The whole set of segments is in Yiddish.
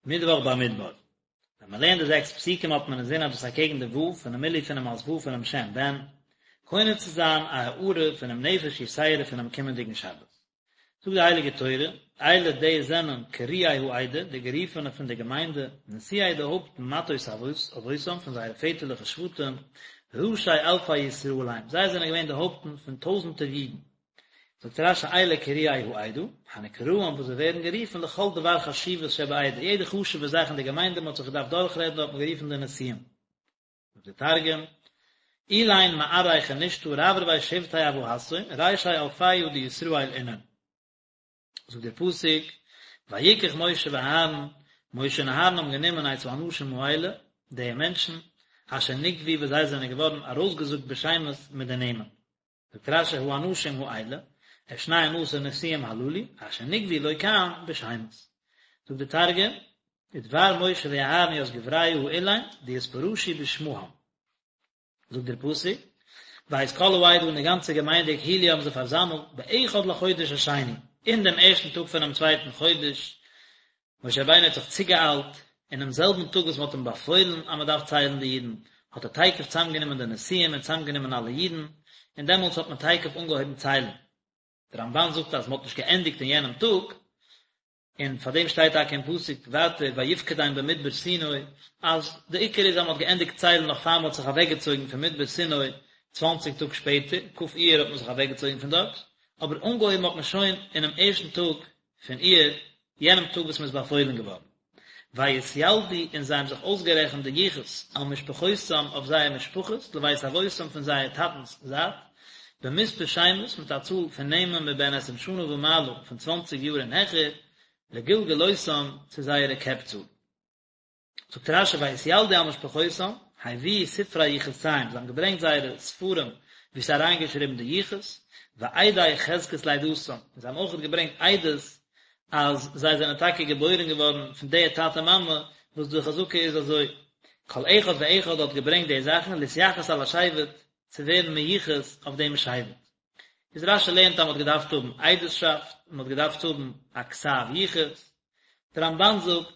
מיטוואך במדבר. ווען מען לערנט די זעקס פסוקים האט מען אינזין אז דאס אקעגן די ו' פונעם מילוי פונעם אות ו' פונעם שם בן, קונה צו זיין א הארה פונעם נפש יתירה פונעם קומענדיגן שבת. זאגט די הייליגע תורה, אלה די זענען קרואי העדה, די גערופענע פון די געמיינדע, נשיאי די הויפטן מטות אבותם פון זייערע פעטערליכע שבטים, ראשי אלפי ישראל הם, זיי זענען געווען די הויפטן פון טויזנטער אידן. זאגט רש"י אלה קרואי העדה, הנקראים וואס זיי ווערן גערופן לכל דבר חשיבות שבעדה, יעדע חשוב'ע זאך אין די געמיינדע מען האט זיך געדארפט דורכרעדן האט מען גערופן די נשיאים. זאגט דער תרגום, אלין מארעי כנישתא רברבי שבטי אבהתהון, רישי אלפיא דישראל אינון. זאגט דער פסוק, ויקח משה ואהרן, משה און אהרן האבן גענומען את האנשים האלה, די מענטשן, אשר נקבו וואס זיי זענען געווארן ארויסגעזאגט בשמות מיט די נעמען. זאגט רש"י האנשים האלה, את שנים עשר נשיאים הללו, אשר נקבו לא כאן בשמות. זאגט דער תרגום, ודבר משה ואהרן ית גבריא האלין דאתפרשו בשמהן. זאגט דער פסוק, ואת כל העדה און די גאנצע געמיינדע הקהילו האבן זיי פארזאמלט באחד לחודש השני, אין דעם ערשטן טאג פונעם צווייטן חודש, משה רבינו האט זיך צוגעאיילט, אינעם זעלבן טאג וואס מען האט אים באפוילן אז מען דארף ציילן די אידן, האט ער תיכף צוזאמגענומען די נשיאים און צוזאמגענומען אלע אידן, און דעמאלטס האט מען תיכף אנגעהויבן ציילן. דער רמב"ן זאגט אז מען האט נישט געענדיגט אין יענעם טאג, און פאר דעם שטייט טאקע אין פסוק ווייטער ויפקדם במדבר סיני, אז די עיקר איז אז מען האט געענדיגט ציילן נאך פאר מען האט זיך אוועקגעצויגן פון מדבר סיני צוואנציג טאג שפעטער, כ' אייר האט מען זיך אוועקגעצויגן פון דארט, אבער אנגעהויבן האט מען שוין אינעם ערשטן טאג פון אייר, יענעם טאג וואס מען איז באפוילן געווארן. ויתילדו און זיי האבן זיך אויסגערעכנט די יחוס על משפחותם אויף זייער משפחות, לבית אבותם פון זייער טאטנ'ס זייט, במספר שמות מיט א צאל פון נעמען מבן עשרים שנה ומעלה פון צוואנציג יאר און העכער, לגלגלותם צו זייערע קעפצאל. זאגט רש"י ויתילדו על משפחותם, הביאו ספרי יחוסיהם, זיי האבן געברענגט זייערע ספרים וואו ס'איז אריינגעשריבן די יחוס, ועדי חזקת לידתם, און זיי האבן אויך געברענגט עדות אז זיי זענען טאקע געבוירן געווארן פון די טאטע מאמע וואס די חזקה איז אזוי, כל אחד ואחד האט געברענגט די זאכן להתייחס על השבט, צו ווערן מיוחס אויף דעם שבט. איז רש"י לערנט אז מען האט געדארפט האבן עדות'שאפט, און מען האט געדארפט האבן א כתב יחוס. דער רמב"ן זאגט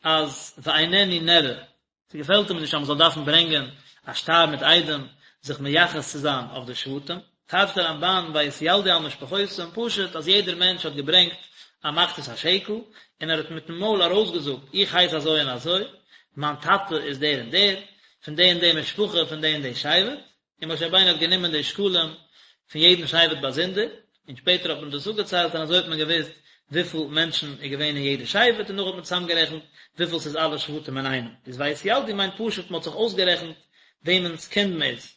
אז ואיננו נראה, ס'געפעלט אים נישט אז מען זאל דארפן ברענגען א שטר מיט עדים זיך מייחס צו זיין אויף די שבטים. טייטשט דער רמב"ן ויתילדו על משפחותם פשוט אז יעדער מענטש האט געברענגט א מחצית השקל און ער האט מיטן מויל ארויסגעזאגט איך הייס אזוי און אזוי, מיין טאטע איז דער און דער, פון די און די משפחה, פון די און די שבט, און משה רבינו האט גענומען די שקלים פון יעדן שבט באזונדער, און שפעטער האט מען דאס אפגעציילט און אזוי האט מען געוואוסט וויפיל מענטשן איז געווען אין יעדע שבט און נאך האט מען צוזאמגערעכנט וויפיל ס'איז אלע שבטים אינאיינעם, איז ויתילדו מיינט פשוט מ'האט זיך אויסגערעכנט וועמענס קינד מ'איז.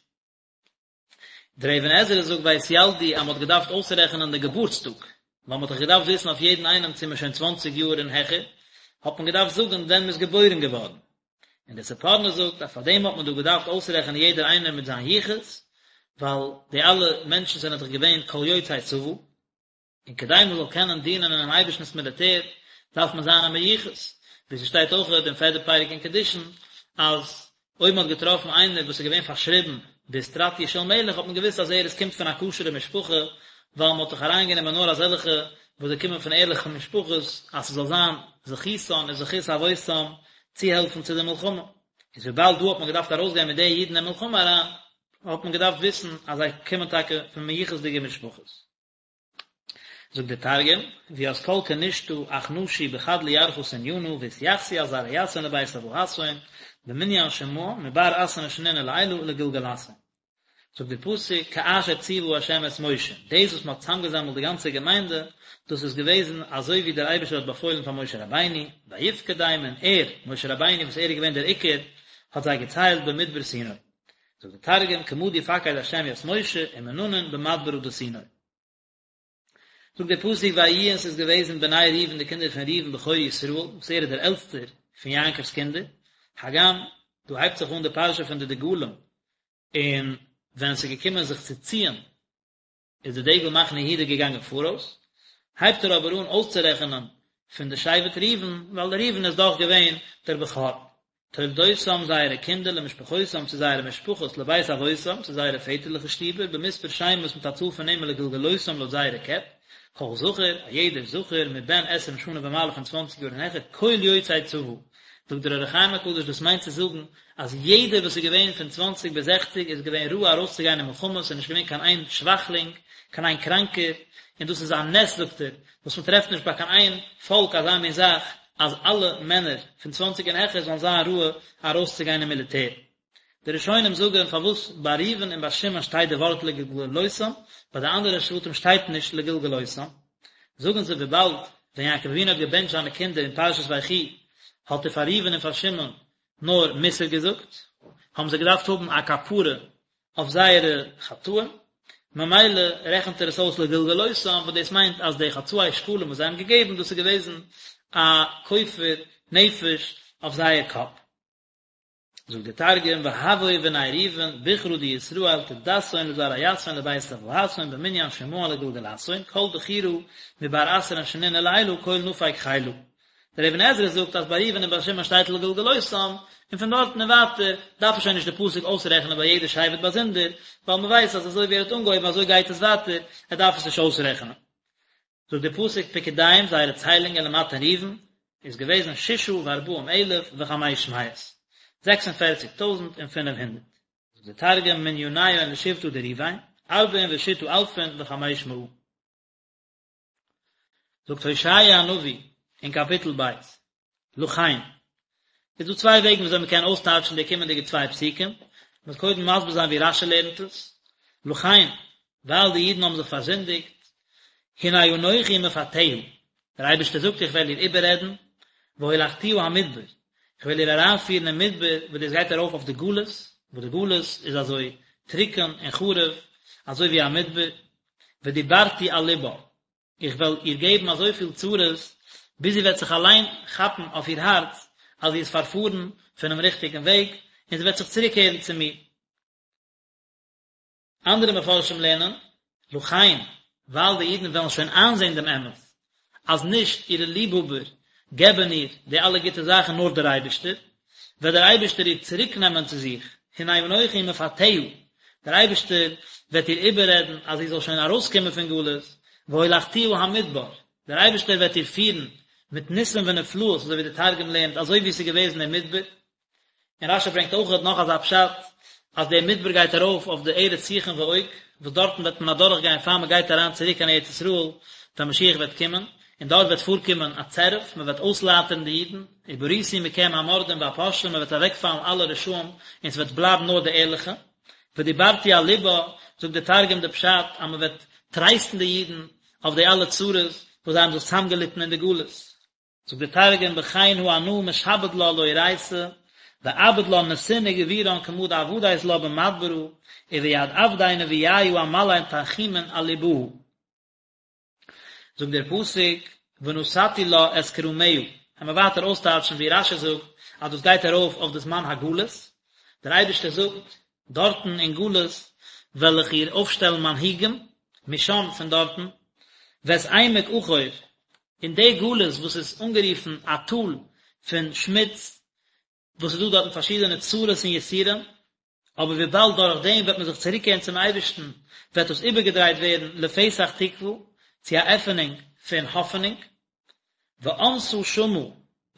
דער אבן עזרא זאגט ויתילדו אז מ'האט געדארפט אויסרעכענען די געבורטס טאג, ווייל מ'האט דאך געדארפט וויסן אויף יעדן איינעם צו מ'איז שוין צוואנציג יאר און העכער, האט מען געדארפט זאגן ווען מ'איז געבוירן געווארן. און דער ספורנו זאגט אז פאר דעם האט מען דא געדארפט אויסרעכענען יעדער איינער מיט זיין יחוס, ווייל די אלע מענטשן זענען דאך געווען כל יוצאי צבא, און כדי מען זאל קענען דינען אינעם אייבערשטנ'ס מיליטער דארף מען זיין א מיוחס, ווי ס'שטייט אויך אין פערדע פרק אין קידושין אז אויב מען האט געטראפן איינער וואס איז געווען פארשריבן באיסטרטיא של מלך האט מען געוואוסט אז ער איז קומט פון א כשר'ע משפחה, ווייל מען האט דאך אריינגענומען נאר אזעלכע וואס זיי קומען פון ערליכע משפחות אז ס'זאל זיין זכותן און זכות אבותם צוהעלפן צו די מלחמה. איז וויבאלד דא האט מען געדארפט ארויסגיין מיט די אידן אין מלחמה אריין, האט מען געדארפט וויסן אז זיי קומען טאקע פון מיוחס'דיגע משפחות. זאגט דער תרגום, וית כל כנישתא אכנשו בחד לירחא תנינא ואתיחסו על זרעיתהון לבית אבהתהון במנין שמהן מבר עשרין שנין ולעילא לגלגלתהון. זאגט דער פסוק כאשר ציוה ה' את משה, דאס וואס מען האט צוזאמגעזאמלט די גאנצע געמיינדע, דאס איז געוועזן אזוי ווי דער אייבערשטער האט באפוילן פאר משה רבינו, ויפקדם און ער, משה רבינו וואס ער איז געווען דער עיקר, האט זיי געציילט במדבר סיני. זאגט דער תרגום כמה די פקיד ה' ית משה ומננון במדברא דסיני. זאגט דער פסוק ויהיו און ס'איז געוועזן בני ראובן די קינדער פון ראובן בכור ישראל, וואס ער איז דער עלטסטער פון יעקב'ס קינדער, הגם דא הייבט זיך אן די פרשה פון די דגלים, און ווען עס איז געקומען זיך צו ציען איז די דגל מחנה יהודה געגאנגען פאראויס, הייבט ער אבער אן אויסצורעכענען פון די שבט ראובן, ווייל ראובן איז דאך געווען דער בכור. תולדותם זייערע קינדער למשפחותם צו זייערע משפחות לבית אבותם צו זייערע פעטערליכע שטיבער במספר שמות מיט א צאל פון נעמען לגלגלותם לויט זייערע קעפ, כל זכר, א יעדער זכר, מבן עשרים שנה ומעלה פון צוואנציג יאר און העכער, כל יוצא צבא. זאגט דער אור החיים הקדוש דאס מיינט צו זאגן אז יעדער וואס איז געווען פון צוואנציג ביז זעכציג איז געווען ראוי ארויסצוגיין אין מלחמה, ס'איז נישט געווען קיין איין שוואכלינג, קיין איין קראנקער, און דאס איז א נס זאגט ער, וואס מען טרעפט נישט ביי קיין איין פאלק אזא מין זאך, אז אלע מענער פון צוואנציג און העכער זאלן זיין ראוי ארויסצוגיין אין מיליטער. די ראשונים זאגן פארוואס ביי ראובן און ביי שמעון שטייט די ווארט לגלגלותם, ביי די אנדערע שבטים שטייט נישט לגלגלותם, זאגן זיי וויבאלד ווען יעקב אבינו האט געבענטשט זיינע קינדער אין פרשת ויחי האט ער פאר ראובן און פאר שמעון נאר מוסר געזאגט, האבן זיי געדארפט האבן א כפרה אויף זייערע חטאים, ממילא רעכנט ער עס אויס לגלגלותם, וואס דאס מיינט אז די חצאי שקלים וואס זיי האבן געגעבן דאס איז געוועזן א כופר נפש אויף זייער קאפ. זאגט דער תרגום והוו בני ראובן בכרא דישראל טודתהון לזרעיתהון לבית אבהתהון במנין שמהון לגלגלתהון כל דכירא מבר עשרין שנין ולעילא כל נפיק חילא דער אבן עזרא זאגט אז ביי ראובן און ביי שמעון שטייט לגלגלותם און פון דארטן און ווייטער דארף ער שוין נישט די פסוק אויסרעכענען ביי יעדע שבט באזונדער ווייל מען ווייסט אז אזוי ווי ער האט אנגעהויבן אזוי גייט עס ווייטער ער דארף עס נישט אויסרעכענען. זאגט דער פסוק פקודיהם זייערע ציילונגען למטה ראובן איז געוועזן ששה וארבעים אלף וחמש מאות, 46 טויזנט און 500. זאגט דער תרגום מניניהון לשבטא דראובן, ארבעין ושתא אלפין וחמש מאה. זאגט הושע הנביא אין קאפיטל ב', לכן. איז דא צוויי וועגן וויאזוי מען קען אויסטייטשן די קומענדיגע צוויי פסוקים, מ'וועט קודם מסביר זיין ווי רש"י לערנט עס, לכן, ווייל די אידן האבן זיך פארזינדיגט, הנה אנכי מפתיה, דער אייבערשטער זאגט איך וועל איר איבעררעדן, והולכתיה המדבר, איך וועל איר אריינפירן אין מדבר, וואס דאס גייט ארויף אויף די גלות, וואס די גלות איז אזוי טרוקן און חרוב, אזוי ווי א מדבר, ודיברתי על לבה, איך וועל איר געבן אזויפיל צרות, ביז זי וועט זיך אליין כאפן אויף איר הארץ אז זי איז פארפארן פונעם ריכטיגן וועג, און זי וועט זיך צוריקקערן צו מיר. אנדערע מפרשים לערנען, לכן, ווייל די אידן וועלן שוין איינזען דעם אמת, אז נישט אירע ליבהאבער געבן איר די אלע גוטע זאכן נאר דער אייבערשטער, וועט דער אייבערשטער איר צוריקנעמען צו זיך, הנה אנכי מפתיה, דער אייבערשטער וועט איר איבעררעדן אז זי זאל שוין ארויסקומען פון גלות, והולכתיה המדבר, דער אייבערשטער וועט איר פירן מיט ניסים ונפלאות, אזוי ווי דער תרגום לערנט, אזוי ווי עס איז געוועזן אין מדבר. און רש"י ברענגט אויך נאך אזא פשט, אז דער מדבר גייט ארויף אויף די ארץ סיחון ועוג, וואס דארטן וועט מען אדורך גיין פאר מען גייט אריין צוריק קיין ארץ ישראל, ווען משיח וועט קומען, און דארט וועט פארקומען א צירוף, מען וועט אויסלייטערן די אידן, וברותי מכם המורדים והפושעים, מען וועט אוועקפאלן אלע רשעים, און ס'וועט בלייבן נאר די ערליכע. ודיברתי על לבה, זאגט דער תרגום די פשט אז מען וועט טרייסטן די אידן אויף די אלע צרות וואס זיי האבן זיך צוזאמגעליטן אין די גלות. זאגט דער תרגום בכן הא אנא משעבד לה לאורייתא ואעביד לה נסין וגבורן כמא דעבדית לה במדברא וביד עבדי נביאיא אמלא תנחומין על לבהא. זאגט דער פסוק ונתתי לה את כרמיה, וועלן מיר ווייטער אויסטייטשן ווי רש"י זאגט אז דאס גייט ארויף אויף די זמן הגלות, דער אייבערשטער זאגט, דארטן אין גלות וועל איך איר אויפשטעלן מנהיגים, משם פון דארטן, ואת עמק עכור, אין די גלות וואס איז אנגערופן א טאל פון שמוץ, וואס איז דא דארטן פארשידענע צרות און יסורים, אבער וויבאלד דורך דעם וועט מען זיך צוריקקערן צום אייבערשטן, וועט דאס איבערגעדרייט ווערן לפתח תקוה, צו א עפענונג פון האפענונג, ואנסה שמה,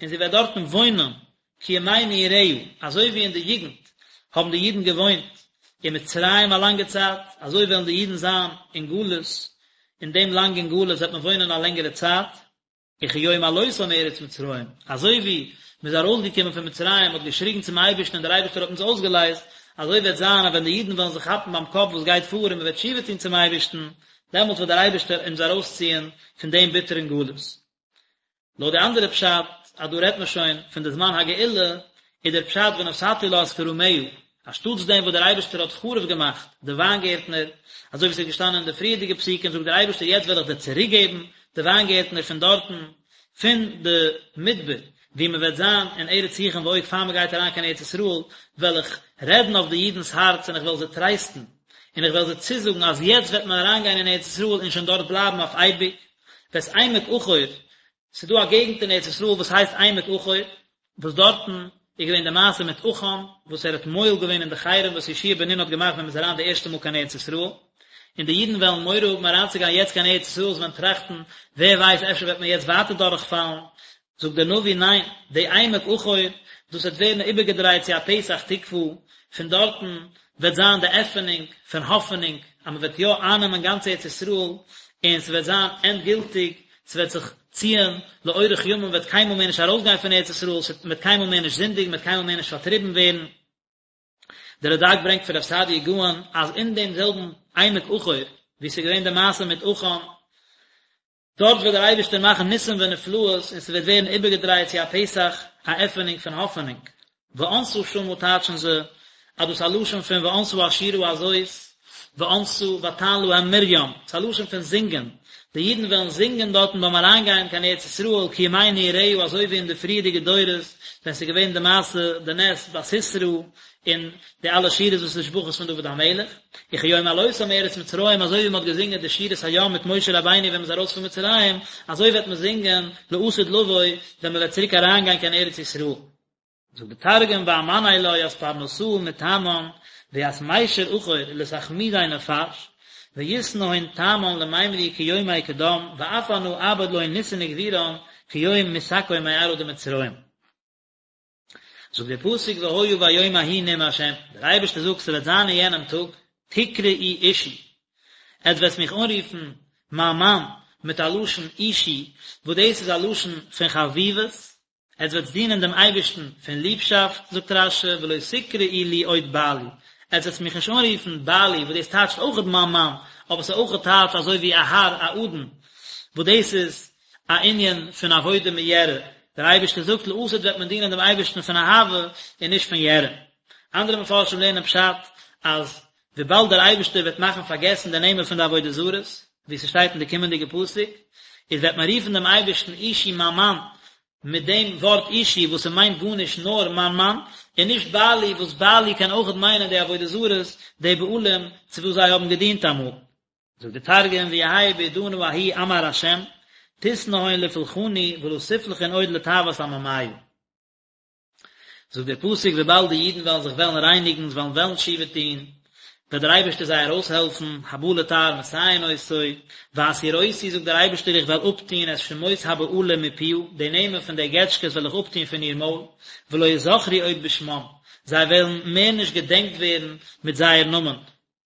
און זי וועט דארטן וואוינען, כימי נעוריה, אזוי ווי אין די יוגנט האבן די אידן געוואוינט אין מצרים א לאנגע צייט, אזוי וועלן די אידן זיין אין גלות, אין דעם לאנגן גלות וועט מען וואוינען א לענגערע צייט. וכיום עלותם מארץ מצרים, אזוי ווי מען איז ארויסגעקומען פון מצרים, מען האט געשריגן צום אייבערשטן און דער אייבערשטער האט אונז אויסגעלייזט, אזוי וועט זיין אז ווען די אידן וועלן זיך כאפן ביים קאפ וואס גייט פאר און מען וועט תשובה טון צום אייבערשטן, דעמאלט וועט דער אייבערשטער אונז ארויסציען פון דעם ביטערן גלות. לויט די אנדערע פשט אז דא רעדט מען שוין פון די זמן הגאולה, איז דער פשט ונתתי לה את כרמיה, אנשטאטס דעם וואס דער אייבערשטער האט חרוב געמאכט די וויינגערטנער, אזוי ווי עס איז געשטאנען אין די פריערדיגע פסוקים, זאגט דער אייבערשטער יעצט וועל איך דיר צוריקגעבן די וויינגערטנער פון דארטן, פון די מדבר, וואו מען וועט זיין אין ארץ סיחון ועוג פאר מען גייט אריין קיין ארץ ישראל, וועל איך רעדן אויף די אידנ'ס הארץ און איך וועל זיי טרייסטן, און איך וועל זיי צוזאגן אז יעצט וועט מען אריינגיין אין ארץ ישראל און שוין דארט בלייבן אויף אייביג. ואת עמק עכור, ס'איז דא א געגנט אין ארץ ישראל וואס הייסט עמק עכור, וואס דארטן איז געווען די מעשה מיט עכן, וואס ער האט מועל געווען אין די חרם וואס יהושע בן נון האט געמאכט ווען מ'איז אריין די ערשטע מאל קיין ארץ ישראל. און די אידן וועלן מורא האבן אריינצוגיין יעצט קיין ארץ ישראל, זיי וועלן טראכטן, ווער ווייסט אפשר וועט מען יעצט ווייטער דורכפאלן, זאגט דער נביא, ניין, די עמק עכור, דאס וועט ווערן איבערגעדרייט צו א פתח תקוה, פון דארטן וועט זיין די עפענונג פון האפענונג אז מען וועט יא אייננעמען גאנץ ארץ ישראל, און ס'וועט זיין ענדגילטיג, ס'וועט זיך ציען לאורך ימים, מען וועט קיינמאל מער נישט ארויסגיין פון ארץ ישראל, מען וועט קיינמאל מער נישט זינדיגן, מען וועט קיינמאל מער נישט פארטריבן ווערן. דער רד"ק ברענגט פון רב סעדיה גאון אז אין דעם זעלבן עמק עכור וואו ס'איז געווען די מעשה מיט עכן, דארט וועט דער אייבערשטער מאכן ניסים ונפלאות און ס'וועט ווערן איבערגעדרייט צו א פתח, א עפענונג פון האפענונג. וענתה שמה טייטשן זיי אז דאס איז א לשון פון וענתה השירה הזאת, וענתה ותען להם מרים, ס'איז א לשון פון זינגען, די אידן וועלן זינגען דארטן ביים אריינגיין קיין ארץ ישראל כימי נעוריה אזוי ווי אין די פריערדיגע דורות ווען ס'איז געווען די מעשה די נס ביי סיסרא און די אלע שירות ותשבחות פון דוד המלך, וכיום עלותם מארץ מצרים אזוי ווי מען האט געזינגען די שירת הים מיט משה רבינו ווען מען איז ארויס פון מצרים, אזוי וועט מען זינגען לעתיד לבוא ווען מען וועט צוריק אריינגיין קיין ארץ ישראל. זאגט די תרגום ואמני לה ית פרנסאה מתמן וית מישר אחור לתחמידי נפש, ויתנהון תמן למימרי כיומי קדם ואף אנא אעבד להון ניסין וגבורן כיום מסכו מארעא דמצרים. זאגט דער פסוק והיה ביום ההוא נאם השם, דער אייבערשטער זאגט ס'וועט זיין אין יענעם טאג, תקראו אישי, עטס וועטס מיך אנרופן מיין מאן, מיט א לשון אישי, וואס דאס איז א לשון פון חביבות, עטס וועטס דינען דעם אייבערשטן פון ליבשאפט, זאגט רש"י, ולא תקראו לי עוד בעלי, עטס וועטס מיך נישט אנרופן בעלי, וואס דאס טייטשט אויכעט מיין מאן, אבער ס'איז אויכעט טייטש אזוי ווי א האר, א אדון, וואס דאס איז א ענין פון עבודה מיראה, דער אייבערשטער זאגט לעתיד וועט מען דינען דעם אייבערשטן פון אהבה און נישט פון יראה. אנדערע מפרשים לערנען פשט אז וויבאלד דער אייבערשטער וועט מאכן פארגעסן די נעמען פון די עבודה זרות, ווי ס'שטייט אין די קומענדיגע פסוק, איז וועט מען רופן דעם אייבערשטן אישי מיין מאן, מיט דעם ווארט אישי וואס ס'מיינט גארנישט נאר מיין מאן, און נישט בעלי וואס בעלי קען אויכעט מיינען די עבודה זרות, די בעלים צו וואס זיי האבן געדינט אמאל. זאגט די תרגום ויהי בעידנא ההיא אמר ה' תתנהון לפולחני ולא תפלחון עוד לטעות עממיא. זאגט דער פסוק וויבאלד די אידן וועלן זיך וועלן רייניגן, זיי וועלן וועלן תשובה טון, וועט דער אייבערשטער זיי ארויסהעלפן, הבא לטהר מסייעין אותו, והסירותי זאגט דער אייבערשטער איך וועל אפטון את שמות הבעלים מפיה, די נעמען פון די געטשקעס וועל איך אפטון פון איר מויל, ולא יזכרו עוד בשמם, זיי וועלן מער נישט געדענקט ווערן מיט זייער נאמען,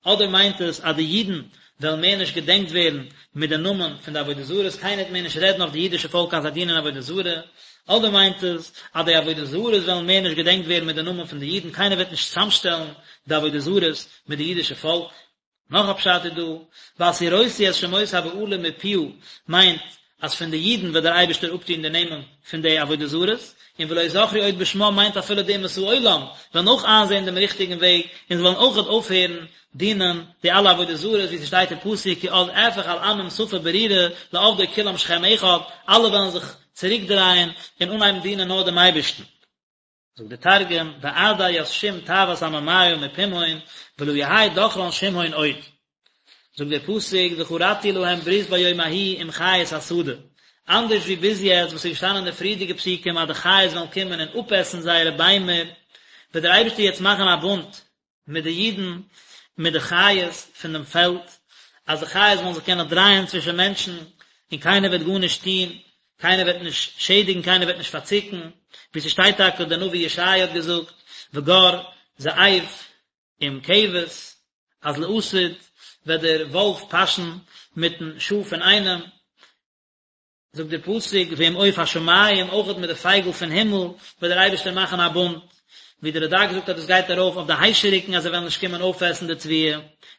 אדער מיינט עס אז די אידן וועלן מער נישט געדענקט ווערן מיט די נאמען פון די עבודה זרות, קיינער וועט מער נישט רעדן אויף די אידישע פאלק אז זיי דינען עבודה זרה, אדער מיינט עס אז די עבודה זרות וועלן מער נישט געדענקט ווערן מיט די נאמען פון די אידן, קיינער וועט נישט צוזאמשטעלן די עבודה זרות מיט די אידישע פאלק. נאך א פשט איז דא, והסירותי את שמות הבעלים מפיה מיינט אז פון די אידן וועט דער אייבערשטער אפטון די נעמען פון די עבודה זרות, און ולא יזכרו עוד בשמם מיינט אפילו די אומות העולם וועלן אויך איינזען דעם ריכטיגן וועג און זיי וועלן אויכעט אויפהערן דינען די אלע עבודה זרות ווי ס'שטייט אין פסוק כי אז אהפך אל עמים שפה ברורה לעבדו כולם שכם אחד, אלע וועלן זיך צוריקדרייען און אנהייבן דינען נאר דעם אייבערשטן. זאגט דער תרגום, ואעדי ית שום טעות עממיא מפומהון, ולא יהי דכרן שמהון עוד. זאגט דער פסוק, וכרתי להם ברית ביום ההוא עם חית השדה, אנדערש ווי ביז יעצט וואס איז געשטאנען אין די פריערדיגע פסוקים אז די חיות וועלן קומען און אפעסן זייערע ביימער, וועט דער אייבערשטער יעצט מאכן א בונד מיט די אידן, מיט די חיות פון דעם פעלד, אז די חיות וועלן זיך קענען דרייען צווישן מענטשן, און קיינער וועט גארנישט טון, קיינער וועט נישט שעדיגן, קיינער וועט נישט פארצוקן, ווי ס'שטייט טאקע, דער נביא ישעיה האט געזאגט, וגר זאב עם כבש, אז לעתיד וועט דער וואלף פאשן מיטן שאף אינאיינעם, זאגט דער פסוק ועם עוף השמים, אויכעט מיט די פייגל פון הימל וועט דער אייבערשטער מאכן א בונד, ווי דער רד"ק זאגט אז דאס גייט ארויף אויף די היישעריקן אז זיי וועלן נישט קומען אויפעסן די תבואה,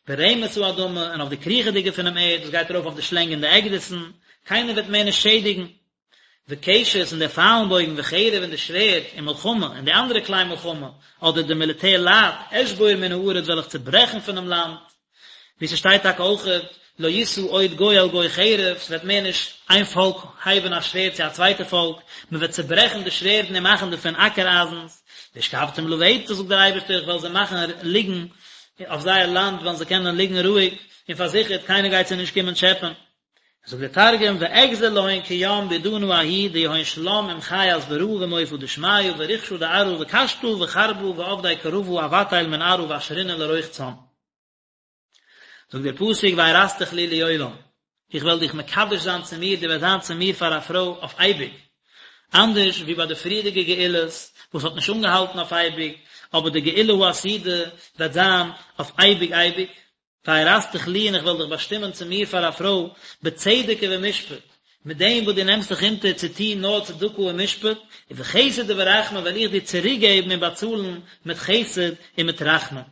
ורמש האדמה, און אויף די קריכעדיגע פונעם ערד, דאס גייט ארויף אויף די שלענג און די עקדיסן, קיינער וועט מער נישט שעדיגן. וקשת און דער פיילנבויגן וחרב און די שווערד ומלחמה און די אנדערע כלי מלחמה, אדער די מיליטער לייט, אשבור מן הארץ וועל איך צעברעכן פונעם לאנד, ווי ס'שטייט טאקע אויכעט, לא ישא עוד גוי אל גוי חרב, ס'וועט מער נישט איין פאלק הייבן א שווערד צו א צווייטע פאלק, מ'וועט צעברעכן די שווערדן און מאכן דערפון אקער אייזנס, והשכבתים לבטח זאגט דער אייבערשטער איך וועל זיי מאכן ליגן אויף זייער לאנד וועלן זיי קענען ליגן רואיג און פארזיכערט, קיינער גייט זיי נישט קומען טשעפען. זאגט דער תרגום, ואגזר להון כים בעידנא ההיא דיהון שלם עם חית ברא ועם עופא דשמיא ורחשא דארעא וקשתא וחרבא ועבדי כרבא אבטיל מן ארעא ואשרינן לרוחצן. זאגט דער פסוק וארשתיך לי לעולם, איך וועל דיך מקדש זיין צו מיר, דו וועסט זיין צו מיר פאר א פרוי אויף אייביג, אנדערש ווי ביי די פריערדיגע גאולות וואס האט נישט אנגעהאלטן אויף אייביג, אבער די גאולה העתידה וועט זיין אויף אייביג אייביג. וארשתיך לי און איך וועל דיך באשטימען צו מיר פאר א פרוי בצדק ובמשפט, מיט דעם וואס דו נעמסט זיך אונטער צו טון נאר צדקה און משפט, ובחסד וברחמים וועל איך דיר צוריקגעבן און באצאלן מיט חסד און מיט רחמים.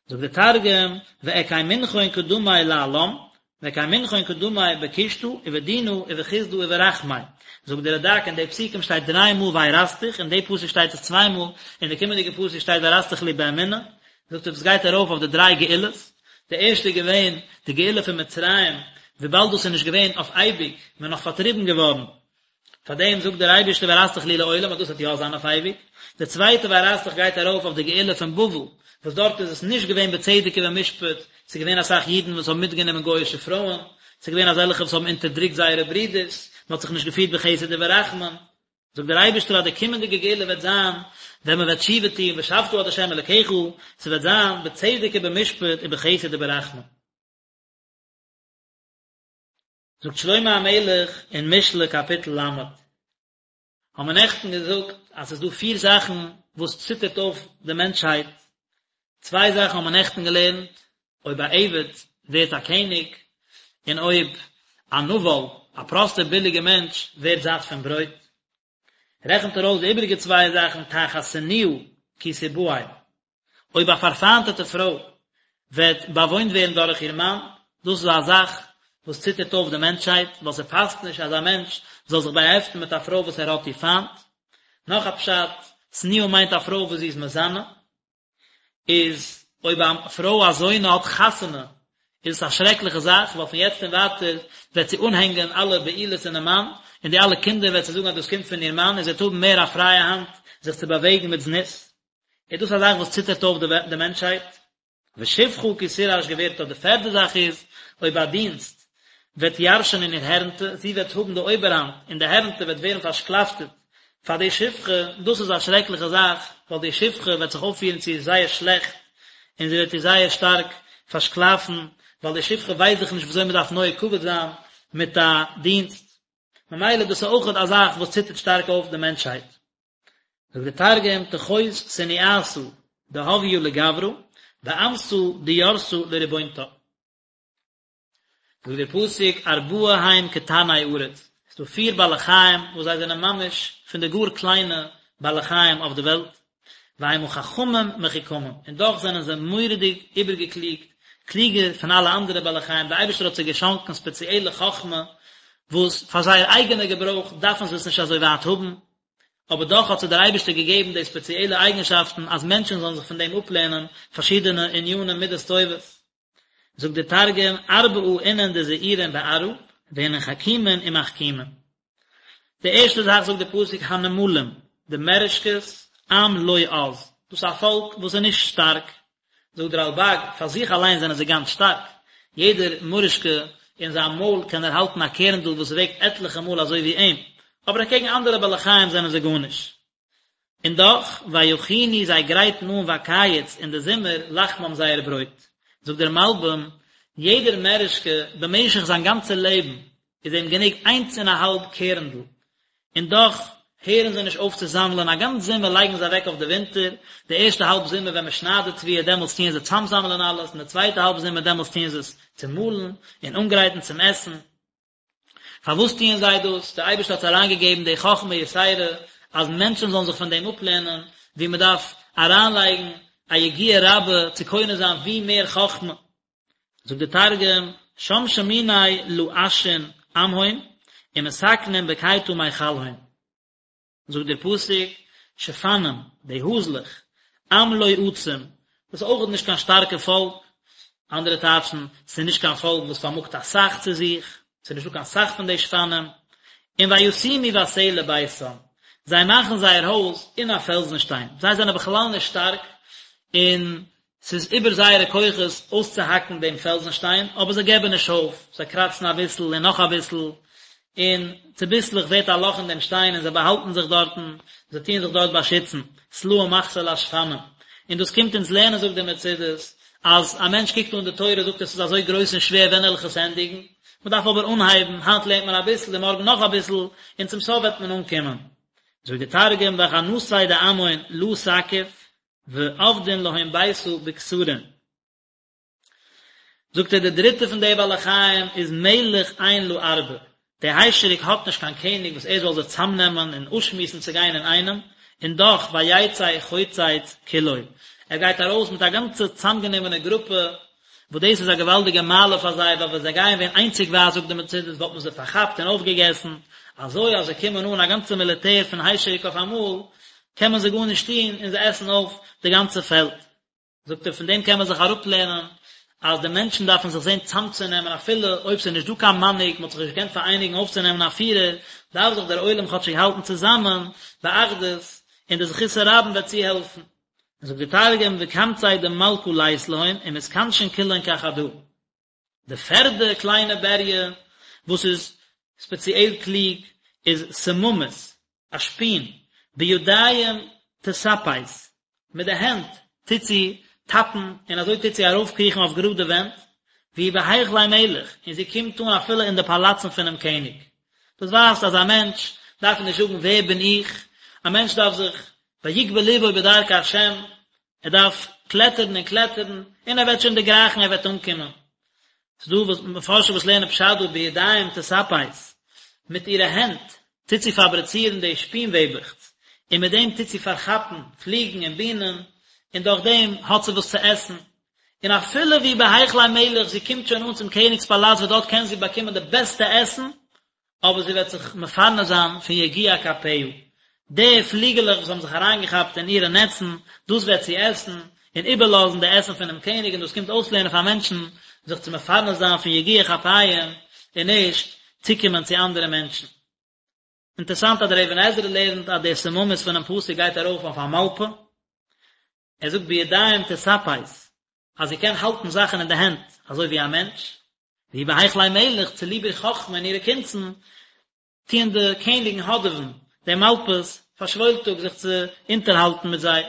זאגט דער תרגום, ואקיימינכון קדמי לעלם, ואקיימינכון קדמי בקושטא ובדינא ובחסדא וברחמי. זאגט דער רד"ק אין די פסוקים שטייט דריי מאל וארשתיך, אין די פסוק שטייט עס צוויי מאל, אין די קומענדיגע פסוק שטייט וארשתיך לי באמונה, זאגט ער דאס גייט ארויף אויף די דריי גאולות, די ערשטע איז געווען די גאולה פון מצרים, וויבאלד דאס איז נישט געווען אויף אייביג, מען איז נאך פארטריבן געווארן, פאר דעם זאגט דער אייבערשטער וארשתיך לי לעולם אז דאס וועט יא זיין אויף אייביג, די צווייטע וארשתיך גייט ארויף אויף די גאולה פון בבל, וואס דארט איז עס נישט געווען בצדק ובמשפט, ס'איז געווען אסאך אידן וואס האבן מיטגענומען גוי'אישע פרויען, ס'איז געווען אזעלכע וואס האבן אונטערדרוקט זייערע ברידערס, מען האט זיך נישט געפירט בחסד וברחמים, זאגט דער אייבערשטער אז די קומענדיגע גאולה וועט זיין ווען מען וועט תשובה טון ושבת עד ה' אלקיך, ס'וועט זיין בצדק ובמשפט ובחסד וברחמים. זאגט שלמה המלך אין משלי קאפיטל ל', האבן מיר נעכטן געזאגט אז ס'איז דא פיר זאכן וואס ציטערט אויף די מענטשהייט, צוויי זאכן האבן מיר נעכטן געלערנט, אויב א עבד ווערט א קעניג, און אויב א נבל, א פראסטער ביליגער מענטש, ווערט זאט פון ברויט. רעכנט ער אויס די איבעריגע צוויי זאכן, תחת שנואה כי תבעל, אויב א פארפיינטעטע פרוי וועט באוואוינט ווערן דורך איר מאן, דאס איז א זאך וואס ציטערט אויף די מענטשהייט, ווייל ס'פאסט נישט אז א מענטש זאל זיך באהעפטן מיט א פרוי וואס ער האט איר פיינט. נאך א פשט, שנואה מיינט א פרוי וואס זי איז מזנה. איז אויב א פרוי א זונה האט חתונה איז עס א שרעקליכע זאך, ווייל פון יעצט און ווייטער וועט זי אנהענגען אלע בעילות אינעם מאן, און די אלע קינדער וועט זי זאגן אז דאס קומט פון איר מאן, און זי וועט האבן מער א פרייע האנט זיך צו באוועגן מיט זנות. איז דאס א זאך וואס ציטערט אויף די מענטשהייט? ושפחה כי תירש גבירתה, די פערדע זאך איז, אויב א דינסט וועט ירשענען איר הערנטע, זי וועט האבן די אויבערהאנט און די הערנטע וועט ווערן פארשקלאפטעט פאר די שפחה, דאס איז א שרעקליכע זאך, ווייל די שפחה וועט זיך אויפפירן צו איר זייער שלעכט, און זי וועט איר זייער שטארק פארשקלאפן, ווייל די שפחה ווייסט דאך נישט ווי אזוי מען דארף נוהג כבוד זיין מיט א דינסט. ממילא דאס איז אויכעט א זאך וואס ציטערט שטארק אויף די מענטשהייט. זאגט דער תרגום, תחות סניאתא דהויא לגברא, ואמתא דירתא לריבונתה. זאגט דער פסוק ארבעה הם קטני ארץ, עס איז דא פיר בעלי חיים וואס זיי זענען ממש פון די גאר קליינע בעלי חיים אויף די וועלט, והמה חכמים מחוכמים, און דאך זענען זיי מורא'דיג איבערגעקליגט, קלוגער פון אלע אנדערע בעלי חיים, דער אייבערשטער האט זיי געשאנקען ספעציעלע חכמה וואס פאר זייער אייגענע געברויך דארפן זיי עס נישט אזוי ווייט האבן, אבער דאך האט זיי דער אייבערשטער געגעבן די ספעציעלע אייגנשאפטן אז מענטשן זאלן זיך פון דעם אפלערנען פארשידענע ענינים מידות טובות. זאגט דער תרגום, ארבעא אינון דזעירין בארעא, ואינון חכימין ומחכימין. די ערשטע זאך זאגט דער פסוק הנמלים, די מערעשקעס, עם לא עז, דאס איז א פאלק וואס איז נישט שטארק, זאגט דער רלב"ג, פאר זיך אליין זענען זיי גאנץ שטארק, יעדער מורישקע אין זיין מויל קען ער האלטן א קערנדל וואס וועגט עטליכע מאל אזוי ווי אים, אבער אקעגן אנדערע בעלי חיים זענען זיי גארנישט. און דאך, ויכינו זיי גרייטן אן בקיץ אין די זומער לחמם זייער ברויט. זאגט דער מלבי"ם, יעדער מערישקע במשך זיין גאנצע לעבן איז אים גענוג איינס און א האלב קערנדל, און דאך הערן זיי נישט אויף צו זאמלען, א גאנץ זומער לייגן זיי אוועק אויף די ווינטער, די ערשטע האלב זומער ווען מען שניידט די תבואה דעמאלטס טוען זיי צאמזאמלען אלעס, און די צווייטע האלב זומער דעמאלטס טוען זיי עס צומאלן און אנגרייטן צום עסן. פארוואס טוען זיי דאס? דער אייבערשטער האט זיי אריינגעגעבן די חכמה יתירה אז מענטשן זאלן זיך פון דעם אפלערנען, ווי מען דארף אריינלייגן א יגיעה רבה צו קונה זיין ווי מער חכמה. זאגט דער תרגום, שם שמיני לאשין עמהון, ומתקנין בקיטא מיכלהון. זאגט דער פסוק, שפנים, די האזלעך, עם לא עצום, דאס איז אויכעט נישט קיין שטארקע פאלק, אנדערע טייטשן, ס'איז נישט קיין פאלק וואס פארמאגט אסאך צו זיך, ס'איז נישטא קיין סאך פון די שפנים, און וישימו בסלע ביתם, זיי מאכן זייער הויז אין א פעלזן שטיין, זיי זענען בכלל נישט שטארק, און ס'איז איבער זייערע כוחות אויסצוהאקן דעם פעלזן שטיין, אבער זיי געבן נישט אויף, זיי קראצן אביסל און נאך אביסל, און צוביסלעך ווערט א לאך אין דעם שטיין און זיי באהאלטן זיך דארטן, זיי טוען זיך דארט באשיצן, סלעים מחסה לשפנים. און דאס קומט אונז לערנען זאגט דער מצודות, אז א מענטש קוקט אן די תורה זאגט ער ס'איז אזוי גרויס און שווער ווען וועל איך עס ענדיגן, מען דארף אבער אנהייבן, היינט לערנט מען אביסל און מארגן נאך אביסל, און צום סוף וועט מען אנקומען. זאגט די תרגום וחנתיה דעמהון לא תקיף ועבדין להון ביתא בכתרין. זאגט ער די דריטע פון די בעלי חיים איז מלך אין לערבה, די היישעריק האט נישט קיין קעניג וואס ער זאל זיי צאמנעמען און אפשמועסן צו גיין אינאיינעם, און דאך ויצא חוצץ כולו, ער גייט ארויס מיט א גאנצע צאמגענומענע גרופע, וואס דאס איז א געוואלדיגע מעלה פאר זיי, ווייל ווען זיי גייען ווען איינציגווייז זאגט די מצודות וואלט מען זיי פארכאפט און אויפגעגעסן, אזוי אז זיי קומען אן א גאנצע מיליטער פון היישעריק אויף אמאל, קען מען זיי גארנישט טון און זיי עסן אויף די גאנצע פעלד. זאגט ער פון דעם קען מען זיך אראפלערנען אז די מענטשן דארפן זיך זען צאמצונעמען אפילו אויב ס'איז נישט דא קיין מנהיג, מ'האט זיך נישט געקענט פאראייניגן אויפצונעמען א פירער, דארף זיך דער עולם כאטשיג האלטן צוזאמען באחדות, און די זכות הרבים וועט צוהעלפן. זאגט די תרגום וקמצי דמלכא לית להון ומתכנשין כולהון כחדא. די פערדע קליינע בריה וואס איז ספעציעל קלוג איז סממית, א שפין, בידיים תספס, מיט די הענט טוט זי טאפן און אזוי טוט זי ארויפקריכן אויף גראדע ווענט, והיא בהיכלי מלך, און זי קומט אן אפילו אין די פאלאצן פונעם קעניג. דאס ווייזט אז א מענטש דארף נישט זאגן ווער בין איך, א מענטש דארף זיך ויגבה לבו בדרכי השם, ער דארף קלעטערן און קלעטערן, און ער וועט שוין דערגרייכן, ער וועט אנקומען. ס'איז דא וואס מפרשים וואס לערנען פשט דא בידיים תספס, מיט אירע הענט טוט זי פאבריצירן די שפין-וועבעכץ, און מיט דעם טוט זי פארכאפן פליגן און בינען, און דורך דעם האט זי וואס צו עסן. און אפילו והיא בהיכלי מלך, זי קומט שוין אן צום קעניג'ס פאלאץ וואס דארט קען זי באקומען די בעסטע עסן, אבער זי וועט זיך מפרנס זיין פון יגיע כפיה, די פליגעלעך וואס האבן זיך אריינגעכאפט אין אירע נעצן, דאס וועט זי עסן, און איבערלאזן די עסן פונעם קעניג, און דאס קומט אויסלערנען פאר מענטשן זיך צו מפרנס זיין פון יגיע כפיהם, און נישט צוקומען צו אנדערע מענטשן. אינטערסאנט אז דער אבן עזרא לערנט אז די סממית פונעם פסוק גייט ארויף אויף א מאלפע, ער זאגט בידיים תספס, אז זי קען האלטן זאכן אין די הענט אזוי ווי א מענטש, והיא בהיכלי מלך, צוליב איר חכמה און אירע קונצן, טוען די קעניגן האדעווען די מאלפעס פאר שוואוילטאג זיך צו אונטערהאלטן מיט זיי.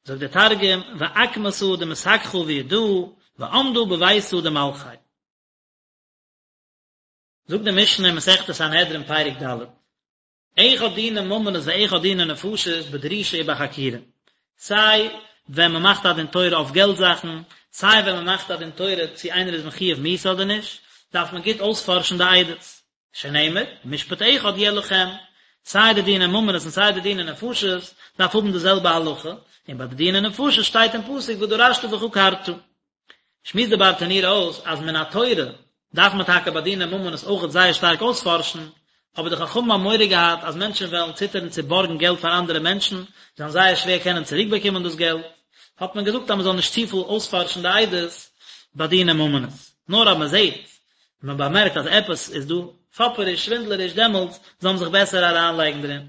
זאגט דער תרגום, ועקמתא דמסככא בידהא, ועמדא בביתא דמלכי. זאגט די משנה אין מסכת סנהדרין פרק ד', אחד דיני ממונות ואחד דיני נפשות בדרישה ובחקירה, סיי ווען מען מאכט א דין תורה אויף געלט זאכן, סיי ווען מען מאכט א דין תורה צו איינער איז מחויב מיתה אדער נישט, דארף מען גוט אויספארשן די עדות, שנאמר, משפט אחד יהיה לכם, סיי די דיני ממונות און סיי די דיני נפשות דארף האבן די זעלבע הלכה, און ביי די דיני נפשות שטייט אין פסוק ודרשת וחקרת. שמועסט די ברטנורא אויס אז מן התורה דארף מען טאקע ביי דיני ממונות אויכעט זייער שטארק אויספארשן, אבער די חכמים האבן מורא געהאט אז מענטשן וועלן ציטערן צו בארגן געלט פאר אנדערע מענטשן, זיי וועלן זייער שווער קענען צוריקבאקומען דאס געלט, האט מען געזאגט אז מען זאל נישט צופיל אויספארשן די עדות ביי דיני ממונות, נאר אז מען זעט און מען באמערקט אז עפעס איז דא פאפעריש, שווינדלעריש, דעמאלטס זאל מען זיך בעסער אריינלייגן דערין.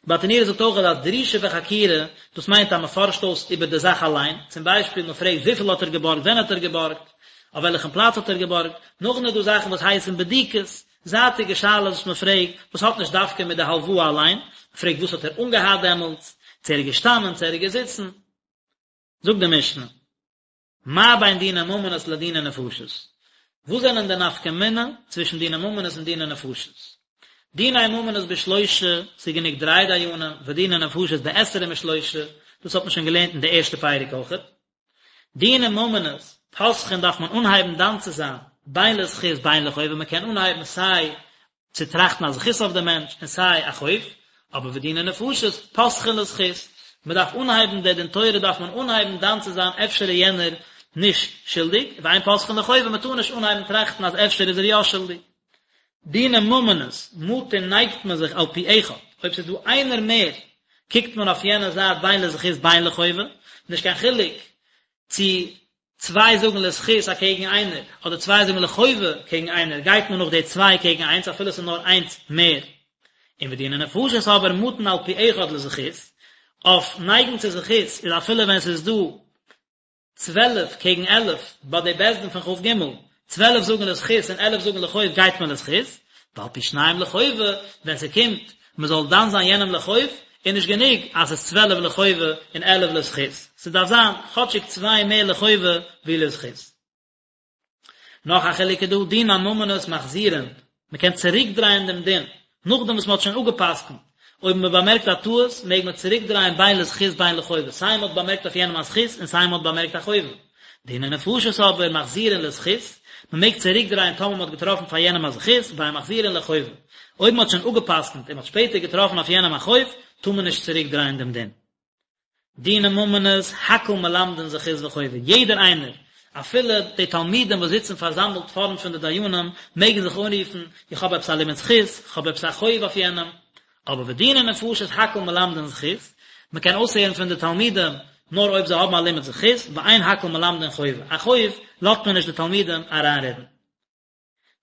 ברטנורא זאגט אויך אז דרישה וחקירה, דאס מיינט אז מען פארשט אויס איבער די זאך אליין, צום ביישפיל מען פרעגט וויפיל האט ער געבארגט, ווען האט ער געבארגט, אויף וועלכן פלאץ האט ער געבארגט, נאכדעם איז דא זאכן וואס הייסן בדיקות, זייטיגע שאלות וואס מען פרעגט, וואס האט נישט דווקא מיט די הלוואה אליין, מען פרעגט וואס האט ער אנגעהאט דעמאלטס, צו ער איז געשטאנען, צו ער איז געזיצן. זאגט די משנה. מה בין דיני ממונות לדיני נפשות? וואס זענען די נפקא מינה צווישן דיני ממונות און דיני נפשות? דיני ממונות בשלושה, ס'איז גענוג דריי דיינים, ודיני נפשות בעשרים ושלושה, דאס האט מען שוין געלערנט אין די ערשטע פרק אויכעט. דיני ממונות, פותחין דארף מען אנהייבן דן צו זיין, בין לזכות בין לחובה, מען קען אנהייבן סיי צו טראכטן א זכות אויף דעם מענטש און סיי א חוב, אבער ודיני נפשות פותחין לזכות, מען דארף אנהייבן די דין תורה דארף מען אנהייבן דן צו זיין אפשר איז יענער נישט שולדיג, ואין פותחין לחובה מען טאר נישט אנהייבן טראכטן אז אפשר איז ער יא שולדיג. דיני ממונות, מטין נייגט מען זיך על פי אחד, אויב ס'איז דא איינער מער קוקט מען אויף יענע זייט בין לזכות בין לחובה, נישט קיין חילוק צו צוויי זאגן לזכות אקעגן איינער, אדער צוויי זאגן לחובה קעגן איינער, גייט מען נאך די צוויי קעגן איינס אפילו עס איז נאר איינס מער. און ודיני נפשות אבער מטין על פי אחד לזכות, אויף נייגן צו זכות איז אפילו ווען עס איז דא 12 קעגן 11 ביי די בית דין פון כ"ג, 12 זאגן לזכות און 11 זאגן לחוב גייט מען לזכות, ועל פי שניים לחובה, ווען ס'קומט מען זאל דן זיין יענעם לחוב, איז נישט גענוג אז ס'איז 12 לחובה און 11 לזכות, ס'דארף זיין כאטשיג צוויי מער לחובה ווי לזכות. נאך א חילוק איז דא, דיני ממונות מחזירין, מען קען צוריק דרייען דעם דין, נאכדעם וואס מען האט שוין אפגע'פסק'נט, אויב מען באמערקט א טעות, מעג מען צוריק דרייען בין לזכות בין לחובה, סיי מען האט באמערקט אויף יענעם א זכות און סיי מען האט באמערקט א חובה. דיני נפשות אבער מחזירין לזכות, מען מעג צוריק דרייען טאמער מען האט געטראפן פאר יענעם א זכות, ואין מחזירין לחובה. אויב מען האט שוין אפגע'פסק'נט און מען האט שפעטער געטראפן אויף יענעם א חוב, טאר מען נישט צוריק דרייען דעם דין. דיני ממונות, הכל מלמדין זכות וחובה, יעדער איינער, אפילו די תלמידים וואס זיצן פארזאמלט פארנט פון די דיינים, מעגן זיך אנרופן, איך האב עפעס א לימוד זכות, איך האב עפעס א חוב אויף יענעם. אבער ודיני נפשות הכל מלמדין זכות, מען קען אויסהערן פון די תלמידים נאר אויב זיי האבן א לימוד זכות, ואין הכל מלמדין חובה, א חוב לאזט מען נישט די תלמידים אריינרעדן.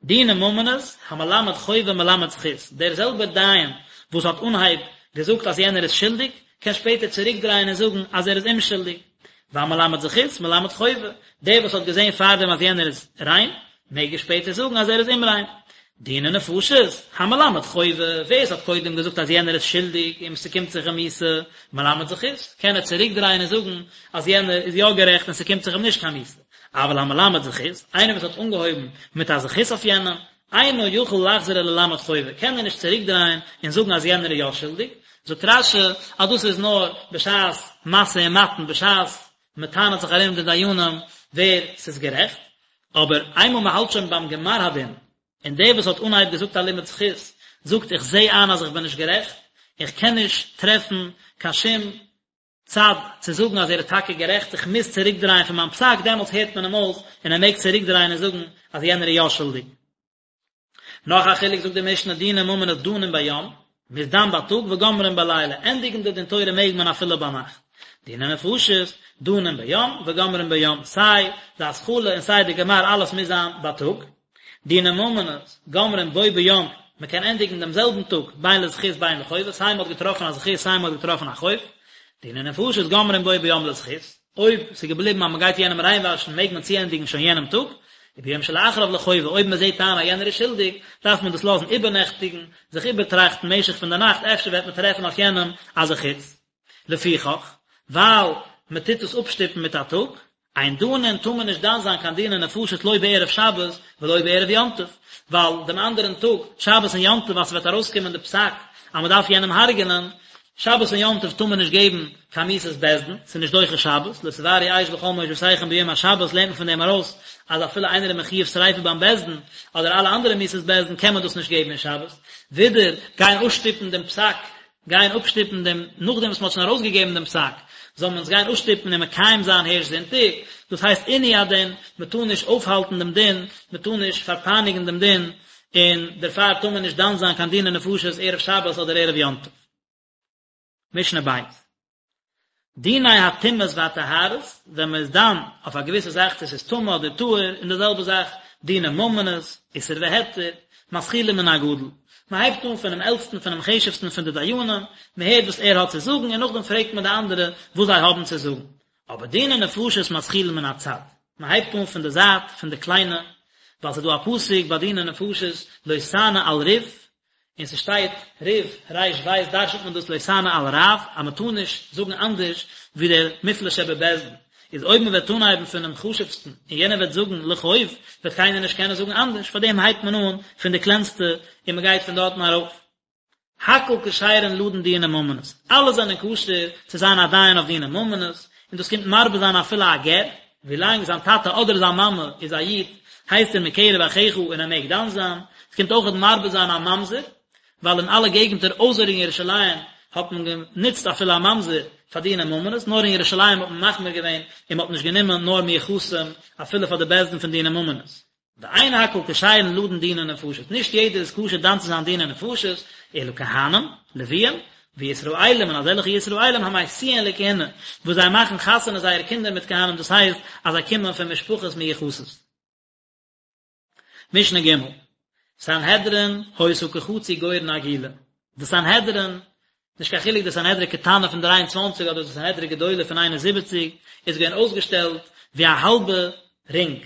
דיני ממונות, המלמד חובה מלמד זכות, דער זעלבער דיין וואס האט אנהייב געזאגט אז יענער איז שולדיג, קען שפעטער צוריקדרייען און זאגן אז ער איז אומשולדיג. והמלמד זכות מלמד חובה, דער וואס האט געזען פארדעם אז יענער איז ריין, מעג ער שפעטער זאגן אז ער איז אומריין. דיני נפשות, המלמד חובה, ווער עס האט קודם געזאגט אז יענער איז שולדיג און ס'קומט זיך אים מיתה, מלמד זכות, קען ער צוריקדרייען און זאגן אז יענער איז יא גערעכט און ס'קומט זיך אים נישט קיין מיתה. אבל המלמד זכות, איינער וואס האט אנגעהויבן מיט א זכות אויף יענעם, אינו יכול לחזור וללמד חובה, קען ער נישט צוריקדרייען און זאגן אז יענער איז יא שולדיג, זאגט רש"י אז דאס איז נאר בשעת משא ומתן, בשעת מען טענה'ט זיך ארום די דיינים ווער ס'איז גערעכט, אבער איינמאל מען האלט שוין ביים גמר הדין, און דער וואס האט אנהייב געזאגט א לימוד זכות, זאגט איך זע איין אז איך בין נישט גערעכט, איך קען נישט טרעפן קיין שום צד צו זאגן אז ער איז טאקע גערעכט, איך מוז צוריקדרייען פון מיין פסק, דעמאלטס הערט מען אים אויס און ער מעג צוריקדרייען און זאגן אז יענער איז יא שולדיג. נאך א חילוק זאגט די משנה דיני ממונות דנין ביום, מ'איז דן בייטאג וגומרין בלילה, ענדיגן די דין תורה מעג מען אפילו ביינאכט. דיני נפשות, דנין ביום וגומרין ביום, סיי די התחלה און סיי די גמר אלעס מוז זיין בייטאג. דיני ממונות, גומרין בו ביום, מען קען ענדיגן דעם זעלבן טאג, בין לזכות בין לחובה, סיי מען האט געטראפן א זכות סיי מען האט געטראפן א חוב, דיני נפשות גומרין בו ביום לזכות, אויב ס'איז געבליבן אז מען גייט יענעם ריינוואשן מעג מען צוענדיגן שוין יענעם טאג, וביום שלאחריו לחובה, אויב מען זעט איין אז יענער איז שולדיג, דארף מען דאס לאזן איבערנעכטיגן, זיך איבערטראכטן משך פון די נאכט, אפשר וועט מען טרעפן אויף יענעם א זכות. לפיכך, ווייל מען טוט עס אפשטופן מיט א טאג, אין דנין טאר מען נישט דן זיין קיין דיני נפשות לא בערב שבת ולא בערב יום טוב, ווייל דעם אנדערן טאג, שבת און יום טוב, אז ס'וועט ארויסקומען די פסק אז מען דארף יענעם הרג'נען, שבת און יום טוב טאר מען נישט געבן קיין מיתת בית דין, ס'איז נישט דוחה שבת, לא תבערו אש בכל מושבותיכם ביום השבת לערנט מען פון דעם ארויס אז אפילו איינער איז מחויב שריפה ביים בית דין, אדער אלע אנדערע מיתות בית דין קען מען דאס נישט געבן אין שבת, ווידער גיין אפשטופן דעם פסק גיין אפשטופן דעם, נאכדעם וואס מען האט שוין ארויסגעגעבן דעם פסק, זאל מען עס גיין אפשטופן און מקיים זיין הערשט זונטאג, דאס הייסט עינוי הדין, מען טאר נישט אויפהאלטן דעם דין, מען טאר נישט פארפייניגן דעם דין, און דערפאר טאר מען נישט דן זיין קיין דיני נפשות ערב שבת אדער ערב יום טוב. משנה ב'. דיני הטומאות והטהרות, ווען מען איז דן אויף א געוויסע זאך צו עס איז טמא אדער טהור, און די זעלבע זאך דיני ממונות, איסור והיתר, מתחילים מן הגדול. מען הייבט אן פונעם עלטסטן פונעם חשוב'סטן פון די דיינים, מען הערט וואס ער האט צו זאגן און נאכדעם פרעגט מען די אנדערע וואס זיי האבן צו זאגן. אבער דיני נפשות מתחילים מן הצד, מען הייבט אן פון די זייט, פון די קליינע, ווייל ס'איז דא א פסוק ביי דיני נפשות לא תענה על ריב, און ס'שטייט ריב ריש בית דרש'נט מען דאס לא תענה על רב אז מ'טאר נישט זאגן אנדערש ווי דער מופלא שבבית דין, איז אויב מ'וועט אנהייבן פונעם חשוב'סטן און יענער וועט זאגן לחוב וועט קיינער נישט קענען זאגן אנדערש, פארדעם הייבט מען אן פון די קלענסטע און מ'גייט פון דארטן ארויף. הכל כשרין לדון דיני ממונות, אלע זענען כשר צו זיין א דיין אויף דיני ממונות, און דאס קומט מרבה זיין אפילו א גר, ווילאנג זיין טאטע אדער זיין מאמע איז א איד, הייסט ער מקרב אחיך און ער מעג דן זיין, עס קומט אויכעט מרבה זיין א ממזר, ווייל אין אלע געגנטער אויסער אין ירושלים האט מען גענוצט אפילו א ממזר פאר דיני ממונות, נאר אין ירושלים האט מען מחמיר געווען און מען האט נישט גענומען נאר מיוחסים אפילו פאר די בית דין פון דיני ממונות. ואין הכל כשרין לדון דיני נפשות, נישט יעדער איז כשר דן צו זיין דיני נפשות, אלא כהנים, לוויים, וישראלים און אזעלכע ישראלים המשיאין לכהונה, וואס זיי מאכן חתונה זייערע קינדער מיט כהנים דאס הייסט אז זיי קומען פון משפחות מיוחסות. משנה ג', סנהדרין היתה כחצי גורן עגולה, די סנהדרין, נישט קיין חילוק די סנהדרין קטנה פון 23 אדער די סנהדרין גדולה פון 71, איז געווען אויסגעשטעלט ווי א האלבע רינג,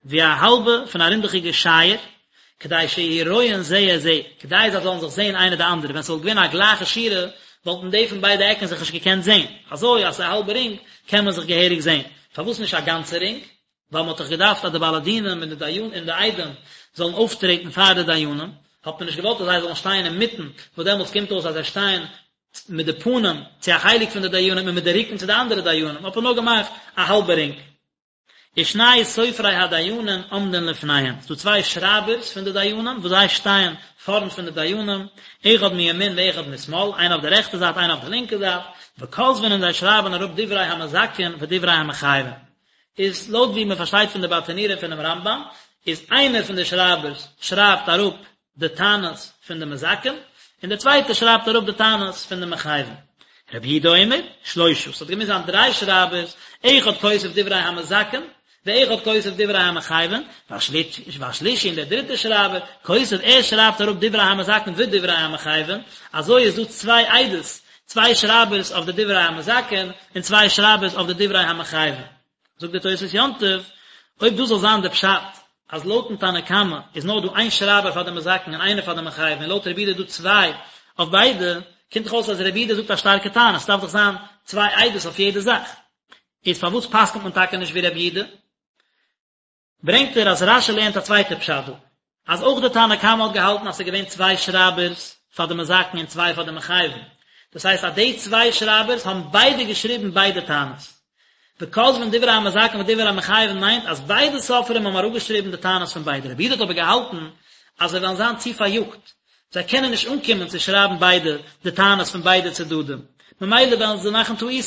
ווי א האלבע פון א רינדעכיגע שייער, כדי שיהיו רואין זה את זה, כדי זיי זאלן זיך זען איינער די אנדערע, ווען ס'וואלט געווען א גלייכע שורה, וואלטן די פון ביידע עקן זיך נישט געקענט זען, אזוי אז ס'איז א האלבע רינג קען מען זיך געהעריג זען, פארוואס נישט א גאנצע רינג? ווייל מ'האט דאך געדארפט אז די בעלי דינים און די דיין און די עדים זאלן אויפטרעטן פאר די דיינים, האט מען נישט געוואלט אז זיי זאלן שטיין אינמיטן, וואס דעמאלטס קומט אויס אז זיי שטייען מיט די פנים צו א חלק פון די דיינים און מיט די רוקן צו די אנדערע דיינים, האט מען נאר געמאכט א האלבע רינג. ושני סופרי הדיינים עומדין לפניהם, ס'דא צוויי שרייבערס פון די דיינים וואס זיי שטייען פארנט פון די דיינים, אחד מימין ואחד משמאל, איינער אויף די רעכטע זייט איינער אויף די לינקע זייט, וכותבין און זיי שרייבען אראפ דברי המזכין ודברי המחייבין. איז לויט ווי מען פארשטייט פון די ברטנורא און פונעם רמב"ם, איז איינער פון די שרייבערס שרייבט אראפ די טענות פון די מזכים, און דער צווייטער שרייבט אראפ די טענות פון די מחייבים. רבי יהודה אומר, שלושה, ס'האט געמוזט זיין דריי שרייבערס, אחד כותב דברי המזכין, ואחד כותב דברי המחייבין, והשלישי און דער דריטער שרייבער, כותב, ער שרייבט אראפ דברי המזכין ודברי המחייבין, אזוי איז דא צוויי עדות, צוויי שרייבערס אויף די דברי המזכין, און צוויי שרייבערס אויף די דברי המחייבין. זאגט דער תוספות יום טוב, אויב דאס זאל זיין די פשט, אז לויטן תנא קמא איז נאר דא איין שרייבער פאר די מזכין און איינער פאר די מחייבין און לויט רבי יהודה איז דא צוויי אויף ביידע, קומט דאך אויס אז רבי יהודה זאגט א שטארקע טענה, ס'דארף דאך זיין צוויי עדות אויף יעדע זאך. איז פארוואס פסק'נט מען טאקע נישט ווי רבי יהודה? ברענגט ער אז רש"י לערנט א צווייטע פשט דא, אז אויך די תנא קמא האט געהאלטן אז ס'איז געווען צוויי שרייבערס פאר די מזכין און צוויי פאר די מחייבין, דאס הייסט אז די צוויי שרייבערס האבן ביידע געשריבן ביידע טענות. וכותבין דברי המזכין ודברי המחייבין מיינט אז ביידע סופרים האבן אראפגעשריבן די טענות פון ביידע. רבי יהודה האט אבער געהאלטן אז זיי וועלן זיין צו פאריאגט, זיי קענען נישט אנקומען צו שרייבן ביידע די טענות פון ביידע צדדים, ממילא וועלן זיי מאכן טעותים,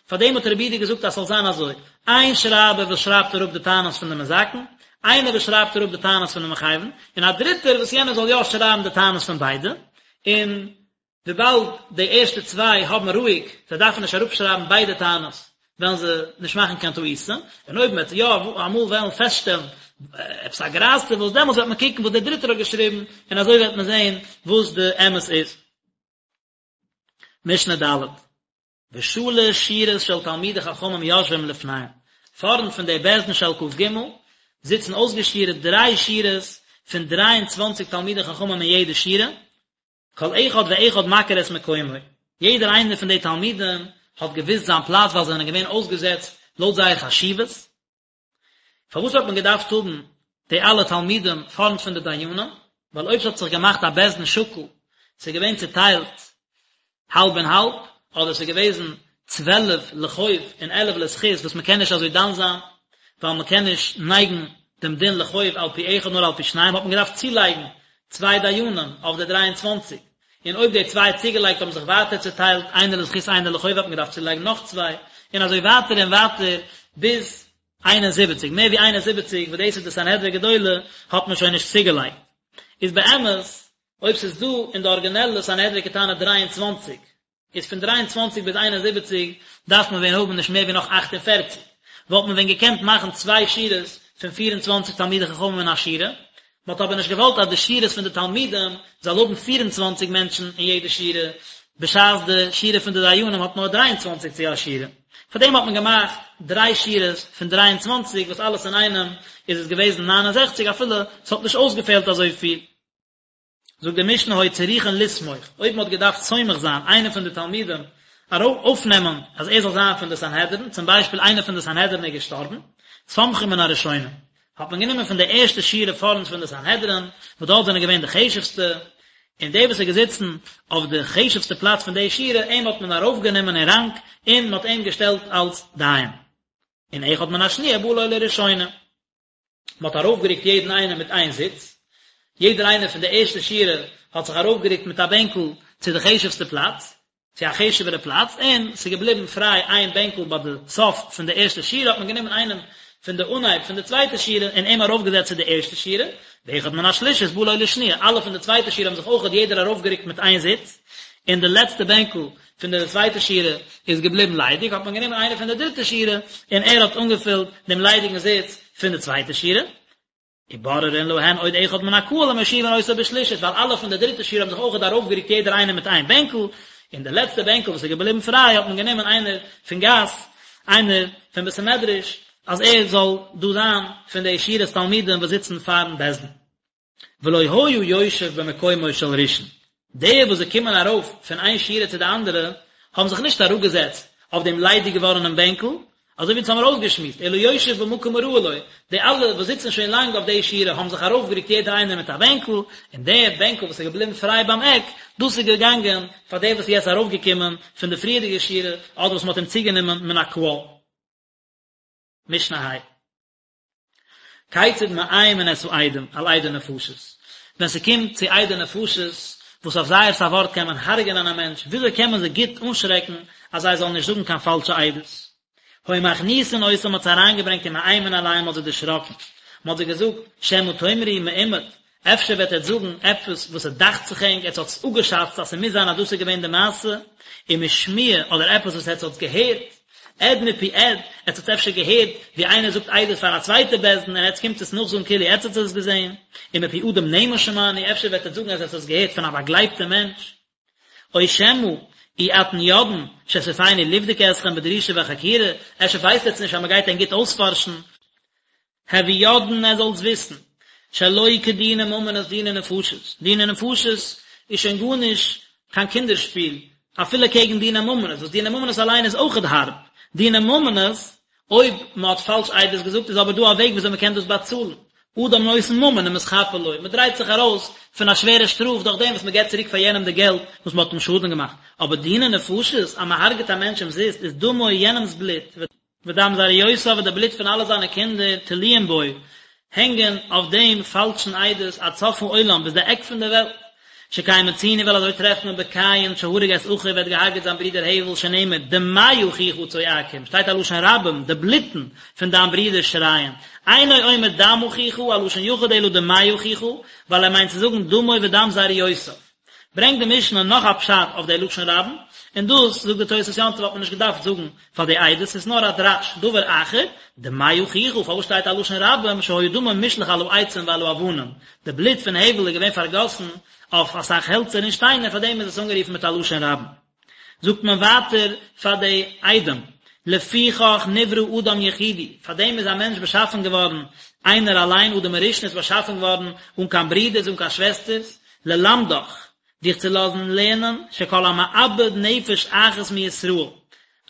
פארדעם האט רבי יהודה געזאגט אז ס'זאל זיין אזוי, איין שרייבער וואס שרייבט אראפ די טענות פון די מזכין, איינער וואס שרייבט אראפ די טענות פון די מחייבין, און א דריטער וואס יענער זאל יא שרייבן די טענות פון ביידע, און וויבאלד די ערשטע צוויי האבן רואיג, זיי דארפן נישט אראפשרייבן ביידע טענות, וועלן זיי נישט מאכן קיין טעותים, און אויב מען וועט יא אמאל וועלן פעסטשטעלן עפעס א גרייז צו וואס, דעמאלטס וועט מען קוקן וואס דער דריטער האט געשריבן, און אזוי וועט מען זען וואס די אמת איז. משנה ד'. ושלש שורות של תלמידי חכמים יושבים לפניהם, פארנט פון די בית דין של כ"ג זיצן אויסגעשורה'ט דריי שורות פון דריי און צוואנציג תלמידי חכמים אין יעדע שורה, כל אחד ואחד מכיר את מקומו, יעדער איינער פון די תלמידים האט געוואוסט זיין פלאץ ווייל זיי זענען געווען אויסגעזעצט לויט זייער חשיבות. פארוואס האט מען געדארפט האבן די אלע תלמידים פארנט פון די דיינים? ווייל אויב ס'האט זיך געמאכט א בית דין שקול, ס'איז געווען צוטיילט האלב און האלב, אדער ס'איז געוועזן צוועלף לחוב און עלף לזכות וואס מ'קען נישט אזוי דן זיין, ווייל מ'קען נישט נייגן דעם דין לחוב על פי אחד נאר על פי שניים, האט מען געדארפט צולייגן צוויי דיינים אויף די דריי און צוואנציג, און אויב די צוויי צוגעלייגט האבן זיך ווייטער צוטיילט איינער לזכות איינער לחוב האט מען געדארפט צולייגן נאך צוויי, און אזוי ווייטער און ווייטער ביז 71, מער ווי 71 וואס דאס איז די סנהדרין גדולה האט מען שוין נישט צוגעלייגט. איז באמת אויב ס'איז דא אין די ארגינעלע סנהדרין קטנה 23, איז פון 23 ביז 71 דארף מען ווען האבן נישט מער ווי נאך 48, וואלט מען ווען געקענט מאכן צוויי שורות פון 24 תלמידי חכמים אין א שורה, מען האט אבער נישט געוואלט אז די שורות פון די תלמידים זאל האבן 24 מענטשן אין יעדע שורה, בשעת די שורה פון די דיינים האט נאר 23 צו א שורה. פאר דעם האט מען געמאכט דריי שורות פון 23 וואס אלעס אינאיינעם איז עס געוועזן 69 אפילו ס'האט נישט אויסגעפעלט אזויפיל. זאגט די משנה היו צריכין לסמוך, אויב מען האט געדארפט סומך זיין איינער פון די תלמידים אויפנעמען אז ער זאל זיין פון די סנהדרין, צום ביישפיל איינער פון די סנהדרין איז געשטארבן, סומכין מן הראשונה, האט מען גענומען פון די ערשטע שורה פארנט פון די סנהדרין, וואס דארט זענען געווען די חשוב'סטע, און דער וואס איז געזיצן אויף די חשוב'סטע פלאץ פון די שורה, אים האט מען ארויפגענומען אין ראנק, און מען האט אים געשטעלט אלס דיין. און אחד מן השניה בא לו לראשונה. מען האט ארויפגערוקט יעדן איינעם מיט איין זיץ, יעדער איינער פון די ערשטע שורה האט זיך ארויפגערוקט מיט א בענקל צו די חשוב'סטע פלאץ, צו א חשוב'ערע פלאץ, און ס'איז געבליבן פריי איין בענקל ביי די סוף פון די ערשטע שורה, האט מען גענומען איינעם פון די אנהייב פון די צווייטע שורה און אים ארויפגעזעצט צו די ערשטע שורה, ואחד מן השלישית בא לו לשניה, אלע פון די צווייטע שורה האבן זיך אויכעט יעדער ארויפגערוקט מיט איין זיץ, און די לעצטע בענקל פון די צווייטע שורה איז געבליבן ליידיג, האט מען גענומען איינער פון די דריטע שורה און ער האט אנגעפילט דעם ליידיגן זיץ פון די צווייטע שורה. ובוררין להן עוד אחד מן הקהל ומושיבין אותו בשלישית, ווייל אלע פון די דריטע שורה האבן זיך אויכעט ארויפגערוקט יעדער איינער מיט איין בענקל, און די לעצטע בענקל וואס איז געבליבן פריי האט מען גענומען איינער פון גאס, איינער פון בית המדרש, אז ער זאל דא זיין פון די שורת תלמידים וואס זיצן פארן בית דין. ולא היה יושב במקומו של ראשון. די וואס זיי קומען ארויף פון איין שורה צו די אנדערע, האבן זיך נישט אראפגעזעצט אויף דעם ליידיג געווארענעם בענקל, אזוי ווי אונז האמיר אויסגעשמועסט, אלא יושב במקום הראוי לו, די אלע וואס זיצן שוין לאנג אויף די שורה האבן זיך ארויפגערוקט יעדער איינער מיט א בענקל, און דער בענקל וואס איז געבליבן פריי ביים עק, דאס איז געגאנגען פאר דער וואס איז יעצט ארויפגעקומען פון די פריערדיגע שורה, אדער וואס מען האט אים צוגענומען מן הקהל. משנה ה'. כיצד מאיימין את העדים על עדי נפשות, ווען ס'קומט צו עדי נפשות, וואס אויף זייערס א ווארט קען מען הרג'ענען א מענטש, וויאזוי קען מען זיי גוט אנשרעקן אז זיי זאלן נישט זאגן קיין פאלשע עדות? היו מכניסין אותם מ'האט זיי אריינגעברענגט ומאיימין עליהם מ'האט זיי דערשראקן, מ'האט זיי געזאגט, שמא תאמרו מאומד, אפשר וועט עטץ זאגן עפעס וואס ס'דאכט זיך ענק, עטץ האטס אפגעשאצט אז ס'מוז זיין אז דאס איז געווען די מעשה, ומשמועה, אדער עפעס וואס עטץ האטס געהערט, עד מפי עד, עטץ האטס אפשר געהערט ווי איינער זאגט עדות פאר א צווייטע בית דין און עטץ קומט עס נאכזאגן כאילו עטץ האטס עס געזען, ומפי אדם נאמן שמענו, אפשר וועט עטץ זאגן אז עטץ האטס געהערט פון א באגלייבטע מענטש. או שמא אי אתן יודעין שסופנו לבדוק אתכם בדרישה וחקירה, אפשר ווייסט עטץ נישט אז מ'גייט ענק גוט אויספארשן, הוו יודעין עטץ זאלטס וויסן, שלא כדיני ממונות דיני נפשות, דיני נפשות איז שוין גארנישט קיין קינדער שפיל, אפילו קעגן דיני ממונות, וואס דיני ממונות אליין איז אויכעט הארב, דיני ממונות, אויב מען האט פאלש עדות געזאגט איז אבער דא א וועג וויאזוי מען קען דאס באצאלן, אדם נותן ממון ומתכפר לו, מען דרייט זיך ארויס פון א שווערע שטראף דורך דעם וואס מען געבט צוריק פאר יענעם די געלט וואס מען האט אים שאדן געמאכט, אבער דיני נפשות, אז מען הרג'ט א מענטש אומזיסט איז דמו יענעמס בלוט, ודם זרעיותיו און די בלוט פון אלע זיינע קינדער תלויים בו, הענגען אויף דעם פאלשן עדות עד סוף העולם ביז די עק פון די וועלט. שכן מצינו ווייל אזוי טרעפט מען בקין שהרג את אחיו ווער האט געהארגעט זיין ברודער הבל שנאמר דמי אחיך צועקים שטייט א לשון רבים די בלוטן פון דיין ברודער שרייען אינו אומר דם אחיך א לשון יחיד אלא דמי אחיך ווייל ער מיינט צו זאגן דמו ודם זרעיותיו. ברענגט די משנה נאך א פשט אויף די לשון רבים, און דאס, זאגט די תוס' יום טוב האט מען נישט געדארפט זאגן פאר די עדות, ס'איז נאר א דרש, דבר אחר, דמי אחיך, פארוואס שטייט א לשון רבים, שהיה דמו מושלך על העצים ועל האבנים, די בלוט פון הבל איז געווען פארגאסן אויף אסאך העלצער און שטיינער, פארדעם איז עס אנגערופן מיט א לשון רבים. זאגט מען ווייטער פאר די עדים, לפיכך נברא אדם יחידי, פאר דעם איז א מענטש באשאפן געווארן איינער אליין, אדם הראשון איז באשאפן געווארן אן קיין ברידערס אן קיין שוועסטערס, ללמדך, דיך צו לאזן לערנען, שכל המאבד נפש אחת מישראל,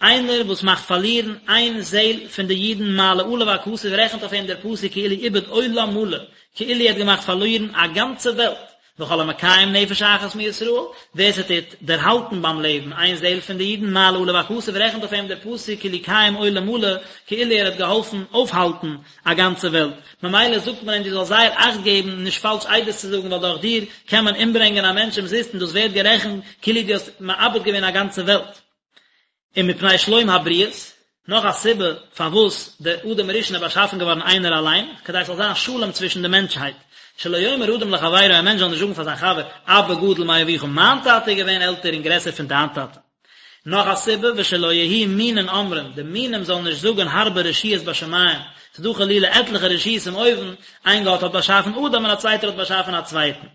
איינער וואס מאכט פארלירן איין זעל פון די אידן מעלה עליו הכתוב רעכנט אויף אים דער פסוק כאילו איבד עולם מלא, כאילו ער האט געמאכט פארלירן א גאנצע וועלט, וכל המקיים נפש אחת מישראל, ווער ס'טוט דערהאלטן ביים לעבן איין זעל פון די אידן, מעלה עליו הכתוב, רעכנט אויף אים דער פסוק כאילו קיים עולם מלא, כאילו ער האט געהאלפן אויפהאלטן א גאנצע וועלט. ממילא זאגט מען אים דו זאלסט זייער אכט געבן נישט פאלש עדות צו זאגן ווייל דורך דיר קען מען אומברענגען א מענטש אומזיסט און דאס ווערט גערעכנט כאילו דו האסט מאבד געווען א גאנצע וועלט. ומפני שלום הבריות, נאך א סיבה פארוואס דער אדם הראשון איז באשאפן געווארן איינער אליין, כדי ס'זאל זיין שלום צווישן די מענטשהייט, שלא יאמר אדם לחבירו, א מענטש זאל נישט זאגן פאר זיין חבר, אבא גדול מאביך, מיין טאטע איז געווען עלטער און גרעסער פון דיין טאטע. נאך א סיבה, ושלא יהיו מינין אומרים, די מינים זאלן נישט זאגן הרבה רשויות בשמים, ס'איז דא חלילה עטליכע רשויות אין אויבן, איין גאט האט באשאפן אדם און א צווייטער האט באשאפן א צווייטן.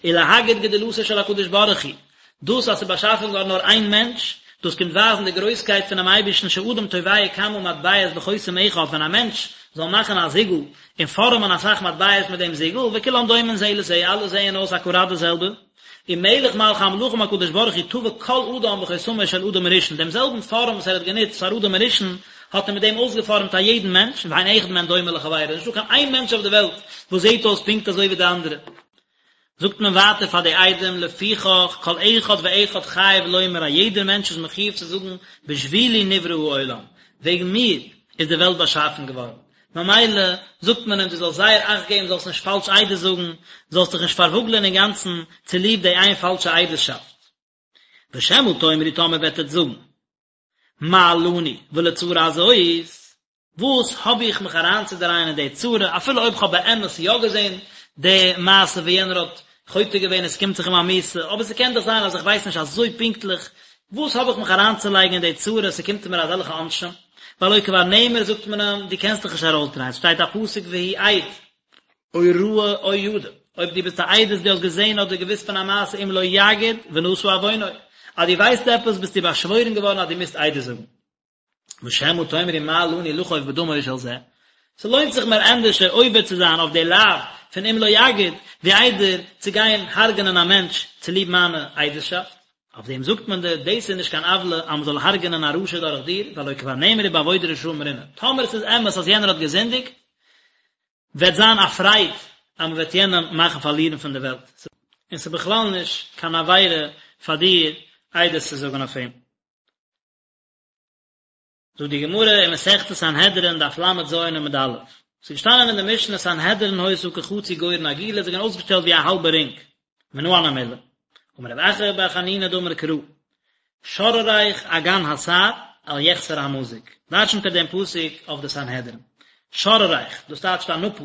ולהגיד גדולתו של הקדוש ברוך הוא, דאס אז ס'איז באשאפן געווארן נאר איין מענטש, דאס קומט ווייזן די גרויסקייט פונעם אייבערשטן שאדם טובע כמה מטבעות בחותם אחד, ווען א מענטש זאל מאכן א זיגל און פארעמען אסאך מטבעות מיט דעם זיגל, וכולם דומין זה לזה, אלע זעען אויס אקוראט די זעלבע, ומלך מלכי המלכים הקדוש ברוך הוא טבע כל אדם בחותמו של אדם הראשון, דעם זעלבן פארעם וואס ער האט גענוצט פאר אדם הראשון, האט ער מיט דעם אויסגעפארעמט א יעדן מענטש, ואין אחד מהן דומה לחבירו, נישטא קיין איין מענטש אויף די וועלט וואס זעט אויס פונקט אזוי ווי די אנדערע. זאגט מען ווייטער פאר די עדים, לפיכך כל אחד ואחד חייב לומר א יעדער מענטש איז מחיוב צו זאגן בשבילי נברא העולם, וועגן מיר איז די וועלט באשאפן געווארן, ממילא זאגט מען אים דו זאלסט זייער אכט געבן זאלסט נישט פאלש עדות זאגן, זאלסט דיך נישט פארוואגלען אינגאנצן צוליב די איין פאלשע עדות'שאפט. ושמא תאמרו טאמער וועט עטץ זאגן. מה לנו ולצרה הזאת, וואס האב איך מיך אריינצודרייען אין די צרה, אפילו אויב כ'האב באמת יא געזען די מעשה ווי יענער האט חוטא געווען און ס'קומט זיך אים א מיתה, אבער ס'קען דאך זיין אז איך ווייס נישט אזוי פונקטליך, וואס האב איך מיך אריינצולייגן אין די צרה, ס'קומט מיר אזעלכע עונשים, והלא כבר נאמר זאגט מען אים, דו קענסט דיך נישט ארויסדרייען, ס'שטייט א פסוק והוא עד. או ראה או ידע, אויב דו ביסט א עדות דו האסט געזען אדער געוואוסט פון א מעשה אם לא יגיד ונשא עוונו, אז דו ווייסט עפעס ביסטו באשוואוירן געווארן אז דו מוזט עדות זאגן. ושמא תאמרו מה לנו לחוב בדמו של זה, ס'לוינט זיך מיר ענדערשער עובר צו זיין אויף די לאו פון אם לא יגיד, ווי איידער צו גיין הרג'נען א מענטש צוליב מיינע עדות'שאפט. אויף דעם זאגט מען דיר, דאס איז נישט קיין עוולה אז מען זאל הרג'נען א רשע דורך דיר, והלא כבר נאמר ובאבוד רשעים רנה. טאמער עס איז אמת אז יענער האט געזינדיגט, וועט זיין א פרייד אז מען וועט יענעם מאכן פארלירן פון די וועלט, און ס'איז בכלל נישט קיין עבירה פאר דיר עדות צו זאגן אויף אים. זאגט די גמרא אין מסכת סנהדרין דף ל"ז עמוד א', ס'איז געשטאנען אין די משנה סנהדרין היתה כחצי גורן עגולה, זיי געווען אויסגעשטעלט ווי א האלבע רינג, מנא הני מילי, אמר רב אחא בר חנינא דאמר קרא, שרריך אגן הסהר אל יחסר המזוג, דרשנ'ט ער דעם פסוק אויף די סנהדרין, שרריך, דאס טייטשט א נאפל,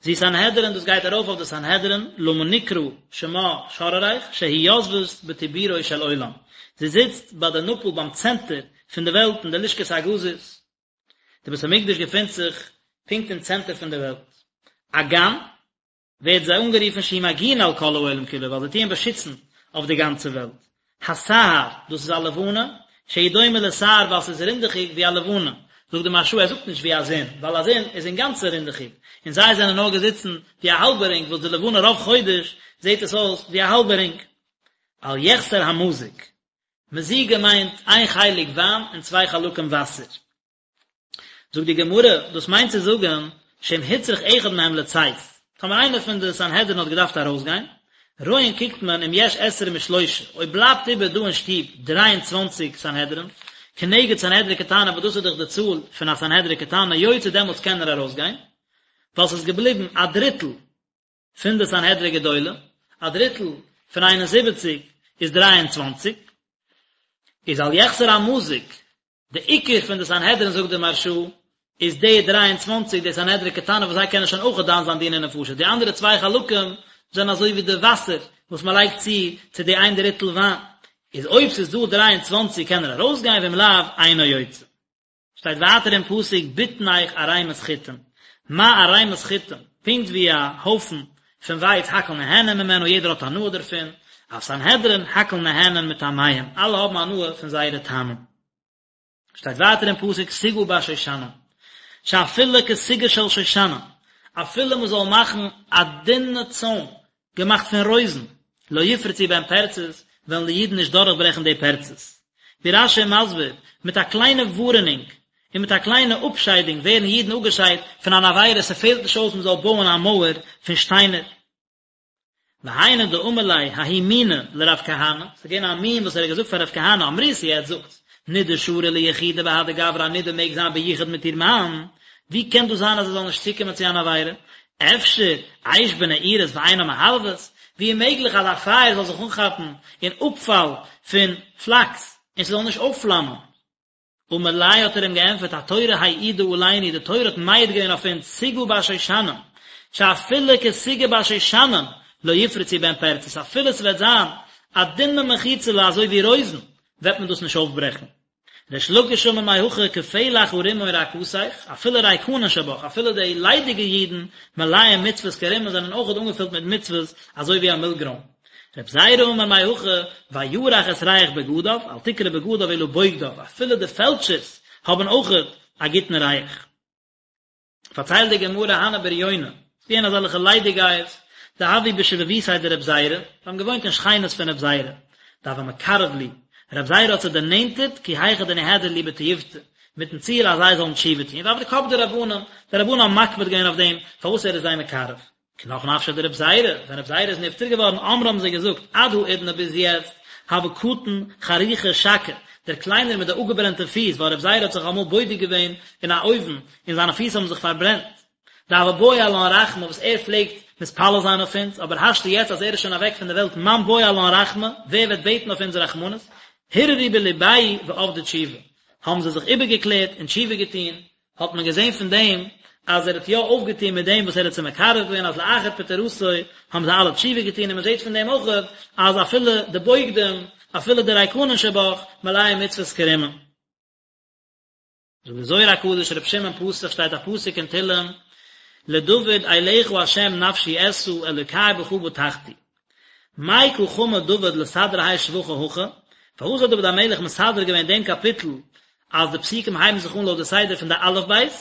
זו סנהדרין דאס גייט ארויף אויף די סנהדרין, למה נקרא שמה שרריך, שהיא יושבת בטבורו של עולם, זי זיצט ביי די נאפל ביים צענטער פון די וועלט אין די לשכת הגזית, די בית המקדש געפינט זיך פונקט אין צענטער פון די וועלט. אגן ווערט זיי אנגערופן שהיא מגינה על כל העולם כולו ווייל זיי טוען באשיצן אויף די גאנצע וועלט. הסהר, דאס איז א לבנה, שהיא דומה לסהר ווייל ס'איז רינדעכיג ווי א לבנה. זאגט די מהרש"א ער זאגט נישט ווי א זון, ווייל א זון איז אינגאנצן רינדעכיג, און זיי זענען נאר געזיצן ווי א האלבע רינג וואס די לבנה רוב חודש זעט עס אויס ווי א האלבע רינג. אל יחסר המזוג, מזיגה מיינט איין חלק וויין און צוויי חלקים וואסער. זאגט די גמרא, דאס מיינט צו זאגן, שאם הוצרך אחד מהם לצאת, טאמער איינער פון די סנהדרין האט געדארפט ארויסגיין, רואין קוקט מען אם יש עשרים ושלושה, אויב בלייבט איבער דא אין שטוב דריי און צוואנציג סנהדרין, כנגד סנהדרין קטנה וואס דאס איז דאך די צאל פון א סנהדרין קטנה, יוצא דעמאלטס קען ער ארויסגיין, ווייל ס'איז געבליבן א דריטל פון די סנהדרין גדולה, א דריטל פון 71 איז 23, איז אל יחסר המזוג, די עיקר פון די סנהדרין זאגט די מהרש"א, איז די 23 די סנהדרין קטנה וואס זיי קענען שוין אויך דן זיין דיני נפשות, די אנדערע צוויי חלקים זענען אזוי ווי די וואסער וואס מען לייגט צו צו די איין דריטל וויין, איז אויב ס'איז דא 23 קען ער ארויסגיין ואם לאו אינו יוצא. שטייט ווייטער אין פסוק בטנך ערימת חיטים, מה ערימת חיטים, פונקט ווי א הויפן פון ווייץ הכל נהנין ממנו יעדער האט הנאה דערפון, אף סנהדרין הכל נהנין מטעמיהם, אלע האבן הנאה פון זייערע טעמים. שטייט ווייטער אין פסוק סוגה בשושנים, שאפילו כסוגה של שושנים, אפילו מען זאל מאכן א דינע צוים געמאכט פון רויזן, לא יפרצו בהן פרצות, וועלן די אידן נישט דורכברעכן די פרצות. ווי רש"י איז מסביר, מיט א קליינע ווארענונג, און מיט א קליינע אפשיידונג ווערן אידן אפגעשיידט פון אן עבירה, ס'פעלט נישט אויס מ'זאל בויען א מויער פון שטיינער. והיינו דאמר ליה ההוא מינא לרב כהנא, ס'איז געווען א מין וואס ער האט געזאגט פאר רב כהנא, אמריתו עטס זאגטס, נידה שרי ליחודה בהדי גברא א נידה מעג זיין ביחוד מיט איר מאן, ווי קען דאס זיין אז ער זאל נישט צוקומען צו אן עבירה? אפשר אש בנעורת ואינה מהבהבת, ווי איז מעגליך אז א פייער זאל זיך אנכאפן אין אפפאל פון פלאקס און ס'זאל נישט אויפפלאמען? אמר ליה האט ער אים געענטפערט התורה העידה עלינו, די תורה האט מעיד געווען אויף אונז סוגה בשושנים, שאפילו כסוגה בשושנים לא יפרצו בהן פרצות, אפילו ס'וועט זיין א דינע מחיצה'לע אזוי ווי רויזן, וועט מען דאס נישט אויפברעכן. ריש לקיש אמר מהכא כפלח הרימון רקתך, אפילו ריקנין שבך, אפילו די ליידיגע אידן מלאים מצוות כרימון זענען אויכעט אנגעפילט מיט מצוות אזוי ווי א מילגרוים. רב זירא אמר מהכא וירח את ריח בגדיו, אל תקרי בגדיו אלא בוגדיו, אפילו די פעלטשערס האבן אויכעט א גוטן ריח. פארציילט די גמרא הנהו בריוני, ס'איז געווען אזעלכע ליידיגייערס, דהוו בשבבותיה דרב זירא, זיי האבן געוואוינט אין שכינות פון רב זירא, דהוה מקרב להו, רב זירא האט זיי דערנענטערט כי היכי דניהדרו להו בתיובתא, מיטן ציל אז זיי זאלן תשובה טון, ועבדי קפדי רבנן, די רבנן האבן מקפיד געווען אויף דעם, פארוואס ער איז זיי מקרב. כי נח נפשיה דרב זירא, ווען רב זירא איז נפטר געווארן, אמרי האבן זיי געזאגט, עד האידנא ביז יעצט, הוה קטן חרוכא שקי, דער קליינער מיט די אפגעברענטע פיס, ווייל רב זירא האט זיך אמאל בודק געווען אין א אויוון, און זיינע פיס האבן זיך פארברענט. דהוה בעי עלן רחמי וואס ער פלעגט מתפלל זיין אויף אונז, אבער השתא יעצט אז ער איז שוין אוועק פון די וועלט מאן בעי עלן רחמי, ווער וועט בעטן אויף אונז רחמנות? הרהרו בלבייהו ועבדו תשובה, האבן זיי זיך איבערגעקלערט און תשובה געטון, האט מען געזען פון דעם אז ער האט יא אויפגעטון מיט דעם וואס ער האט זיי מקרב געווען אז לאחר פטירתו האבן זיי אלע תשובה געטון און מען זעט פון דעם אויך אז אפילו די בוגדים אפילו די ריקנין שבך מלאים מצוות כרימון. זאגט די זוהר הקדוש ר' שמעון פתח שטייט א פסוק אין תהלים לדוד אליך ה' נפשי אשא אלוקי בך בטחתי מאי קא חמי דוד לסדרא האי שבחא הכי, פארוואס האט דוד המלך מסדר געווען דעם קאפיטל אז די פסוקים הייבן זיך אן לויט די סדר פון די אלף בית,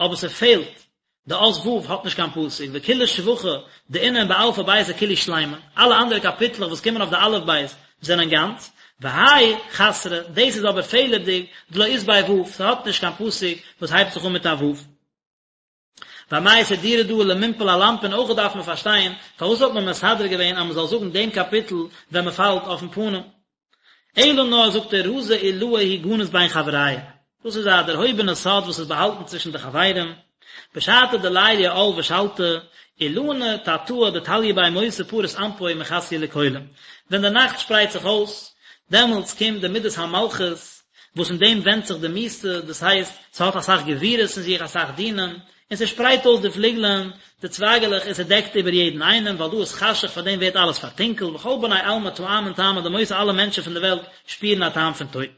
אבער ס'פעלט. די אות ו' האט נישט קיין פסוק, וכולהו שבחי דאינון באלפא ביתא כולהו שלימין, אלע אנדערע קאפיטלעך וואס קומען אויף די אלף בית זענען גאנץ, והאי חסרא, דאס איז אבער פעלערדיג, דלא אית ביה ו', ס'האט נישט קיין פסוק וואס הייבט זיך אן מיט א ו'. ואמאי סדירו דא למנפל על אנפין אויך דארף מען פארשטיין פארוואס האט מען מסדר געווען אז מען זאל זאגן דעם קאפיטל ווען מען פאלט אויפן פנים. אלא נאר זאגט ער רזא עילאה הוא גניז בין חבריא, דאס איז א דערהויבענע סוד וואס איז באהאלטן צווישן די חברים, בשעתא דליליא עאל ושלטא, אילנא תתאה דתליא ביה מותא פריס אנפוי ומכסיא לכולא, ווען די נאכט שפרייט זיך אויס, דעמאלטס קומט די מידת המלכות, וואס אין דעם ווענדט זיך די מיתה, דאס הייסט, ס'האט אסאך גבורות אין זיך, אסאך דינים, און ס'שפרייט אויס די פליגלען, די צווייגעלעך, און ס'דעקט איבער יעדן איינעם, ווייל דא איז חשך, פאר דעם ווערט אלעס פארטונקלט, וכל בני עלמא טעמין טעמא דמותא אלע מענטשן פון די וועלט שפירן א טעם פון טויט.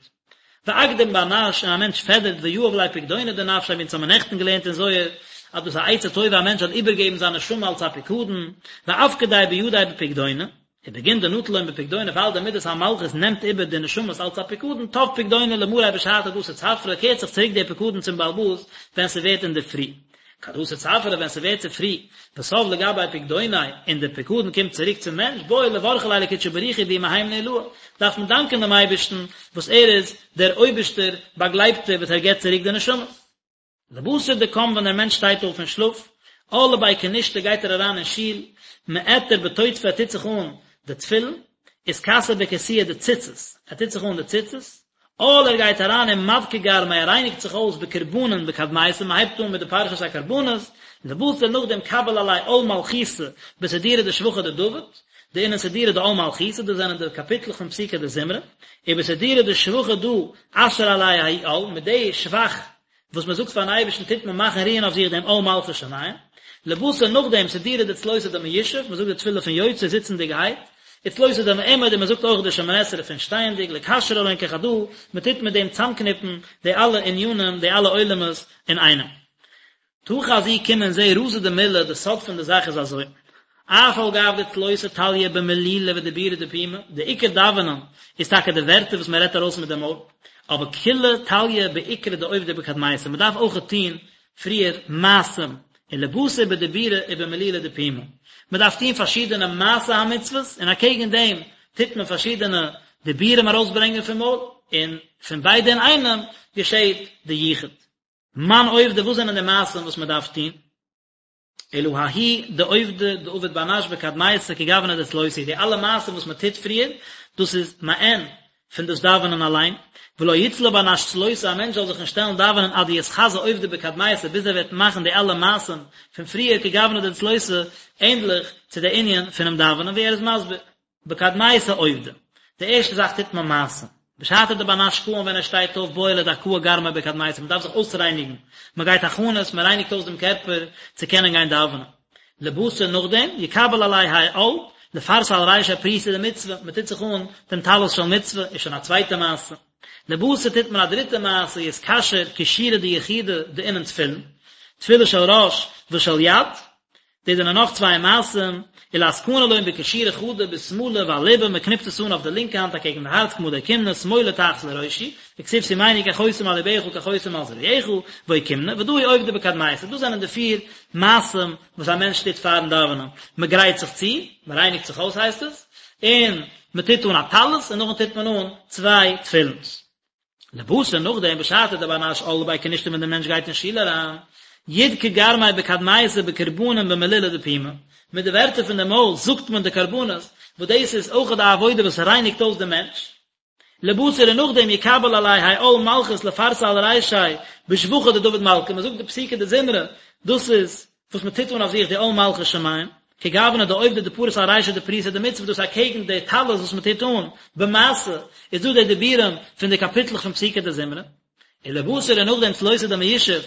ואקדים בר נש, און א מענטש פעדערט ויהב ליה פקדונא דנפשיה, ווי אונז האבן נעכטן געלערנט אין זוהר, אז דאס איז א עצה טובה א מענטש זאל איבערגעבן זיין נשמה אלס א פיקדון, ואפקדיה בידיה בפקדונא, ובגין דנטל לון בפקדונא ווייל די מידת המלכות נעמט איבער די נשמות אלץ א פיקדון תב פקדונא למריה בשעתא דאתי צפרא קערט זיך צוריק דער פיקדון צום בעל הבית ווען ס'ווערט אינדערפרי כד אתי צפרא ווען ס'ווערט צופרי ותב לגביה פקדוניה און דער פיקדון קומט צוריק צום מענטש בעי לברכא ליה לקודשא בריך הוא דהוא מהימנא עילאה דארף מען דאנקען דעם אייבערשטן וואס ער איז דער אויבערשטער באגלייבטער וואס ער געבט צוריק די נשמות. לבתר דקם ווען דער מענטש שטייט אויף פון שלאף, על לבי כנישתא גייט ער אריין אין שול, מעטר בטוטפי ער טוט זיך אן די תפילין, אתכסי בכסויא דציצית, ער טוט זיך אן די ציצית, על ער גייט אריין ומדכי גרמיה ער רייניגט זיך אויס בקרבנין בקדמיתא מען הייבט אן מיט די פרשת הקרבנות, לבתר נאכדעם קביל עליה עול מלכותא בסידורא דשבחא דדוד, דאינון סידורא דעול מלכותא דאס זענען די קאפיטלעך פון פסוקי דזמרה, ובסידורא דשבחא דא אשרי עליה ההוא עול, מיט די שבח וואס מען זאגט פארן אייבערשטן טוט מען מאכן רוען אויף זיך דעם עול מלכות שמים, לבתר נאכדעם סידורא דצלותא דמיושב, מען זאגט די תפילה פון יוצר זיצנדיגערהייט, וצלותא דמעומד און מען זאגט אויך די שמונה עשרה פון שטייענדיג, לקשרא לון כחדא, מען טוט מיט דעם צאמקניפן די אלע ענינים, די אלע עולמות אינאיינעם. תא חזי קום און זע רזא דמלה, די סוד פון די זאך איז אזוי, אף על גב דצלותא תליא במלולא ודיבורא דפומא, די עיקר דאווענען איז טאקע די ווערטער וואס מען רעדט ארויס מיט די מויל, אבער כולא תליא בעיקרא דעובדא בקדמיתא, מען דארף אויכעט טון פריער מעשים, ולבתר בדיבורא ובמלולא דפומא, מען דארף טון פארשידענע מעשי המצוות, און אקעגן דעם טוט מען פארשידענע דיבורים ארויסברענגען פון מויל, און פון ביידע אינאיינעם געשעט די יחוד. מאן עובדי וואס זענען די מעשים וואס מען דארף טון? אלא ההוא דעובדא דעביד בר נש בקדמיתא כגוונא דצלותא די אלע מעשים וואס מען טוט פריער דאס איז מעין פון דאס דאווענען אליין, ולא יצלי בר נש צלותא א מענטש זאל זיך נישט שטעלן דאווענען עד דיתחזי עובדא בקדמיתא ביז ער וועט מאכן די אלע מעשים פון פריער כגוונא דצלותא ענדליך צו די ענין פונעם דאווענען ווי ער איז מסביר. בקדמיתא עובדא, די ערשטע זאך טוט מען מעשים. בשעתא דבר נש קאים ווען ער שטייט אויף בעי לדכאה גרמיה בקדמיתא, מען דארף זיך אויסרייניגן, מען גייט הכנות, מען רייניגט אויס דעם קערפער צו קענען גיין דאווענען. לבתר נאכדעם, יקבל עליה האי עול, לפרסא על רישיה פריסא דמצוה, מען טוט זיך אן דעם טלית של מצוה, איז שוין א צווייטע מעשה. לבתר טוט מען א דריטע מעשה, יתקשר קישורי דיחודא דאינון תפילין, תפילין של ראש ושל יד, דאס זענען נאך צוויי מעשים, ולאתקנא לון בקשירא חדא בשמאלא ועל לבא, מען קניפט עס אן אויף די לינקע האנט אקעגן די הארץ כמה דאוקימנא, שמאלא תחת לראשי, וכתיב שימני כחותם על לבך כחותם על זרועך, ואוקימנא, ודא הוא עובדא בקדמיתא, דאס זענען די פיר מעשים וואס א מענטש טוט פארן דאווענען, מען גרייט זיך צו, מען רייניגט זיך אויס הייסט עס, און מען טוט אן א טלית, און נאכדעם טוט מען אן צוויי תפילינס. לבתר נאכדעם בשעתא דבר נש על לבי כנישתא ווען דער מענטש גייט אין שול אריין, ידכי גרמיה בקדמיתא בקרבנין במלולא דפומא, מיט די ווערטער פון די מויל זאגט מען די קרבנות, וואס דאס איז אויך די עבודה וואס רייניגט אויס דעם מענטש. לבתר און נאכדעם יקבל עליה האי עול מלכות לפרסא על רישיה בשבחא דדוד מלכא, מען זאגט די פסוקי דזמרה, דאס איז וואס מען טוט אן אויף זיך די עול מלכות שמים, כגוונא דעובדא דפריס על רישיה דפריסא דמצוה דאס אקעגן די טלית וואס מען טוט אן במעשה, איז דא די דיבורים פון די קאפיטלעך פון פסוקי דזמרה, ולבתר און נאכדעם צלותא דמיושב,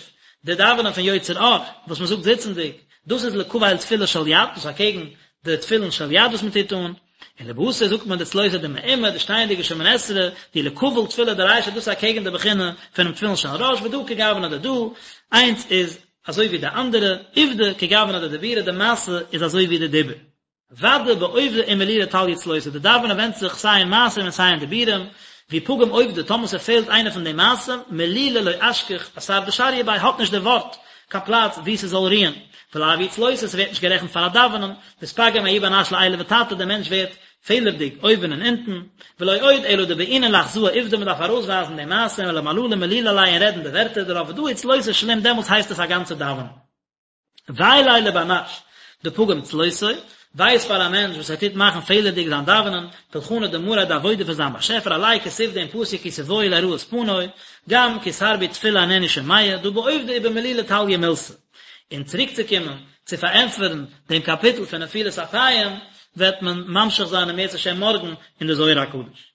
די דאווענען פון יוצר אור, וואס מען זאגט זיצנדיג, דאס איז לקבל תפילין של יד, דאס אקעגן די תפילין של יד וואס מען טוט אן, ולבתר זאגט מען די צלותא דמעומד, די שטייענדיגע שמונה עשרה, דהיא לקבל תפילין דרישא דאס אקעגן די בחינה פונעם תפילין של ראש, ודא כגוונא דדא, איינס איז אזוי ווי די אנדערע, עובדא כגוונא דדיבורא, די מעשה איז אזוי ווי די דיבור. ודאי בעובדא ומלולא תליא צלותא, די דאווענען ווענדט זיך סיי אין מעשים און סיי אין דיבורים. ואי פגים עובדא, טאמער ס'פעלט איינע פון די מעשים, מלולא לא אשכח אתר דשריא ביה האט נישט די ווארט קיין פלאץ וואו ס'זאל רוען, ולאו היא צלותא, ס'ווערט נישט גערעכנט פאר א דאווענען, ואתפגים ההוא בר נש לעילא ותתא, דער מענטש ווערט פעלערדיג אויבן און אונטן, ולא עוד אלא דבעינן לאחזאה עובדא מ'דארף ארויסווייזן די מעשים ולמללא מלולא עלייהו און רעדן די ווערטער דערויף ודא הוא צלותא שלים דעמאלטס הייסט עס א גאנצע דאווענען. וויי ליה לבר נש דפגים צלותיה, וויי איז פאר א מענטש וואס ער טוט מאכן פעלערדיג זיין דאווענען, פולחנא דמאריה די עבודה פון זיין באשעפער עליה כתיב דעם פסוק כי תבואו לראות פני, גם כי תרבו תפלה אינני שומע, דהא בעובדא ובמלולא תליא מילתא. און צוריקצוקומען צו פארענטפערן דעם קאפיטל פון נפילת אפיים, וועט מען ממשיך זיין אם ירצה השם מארגן אין די זוהר הקדוש.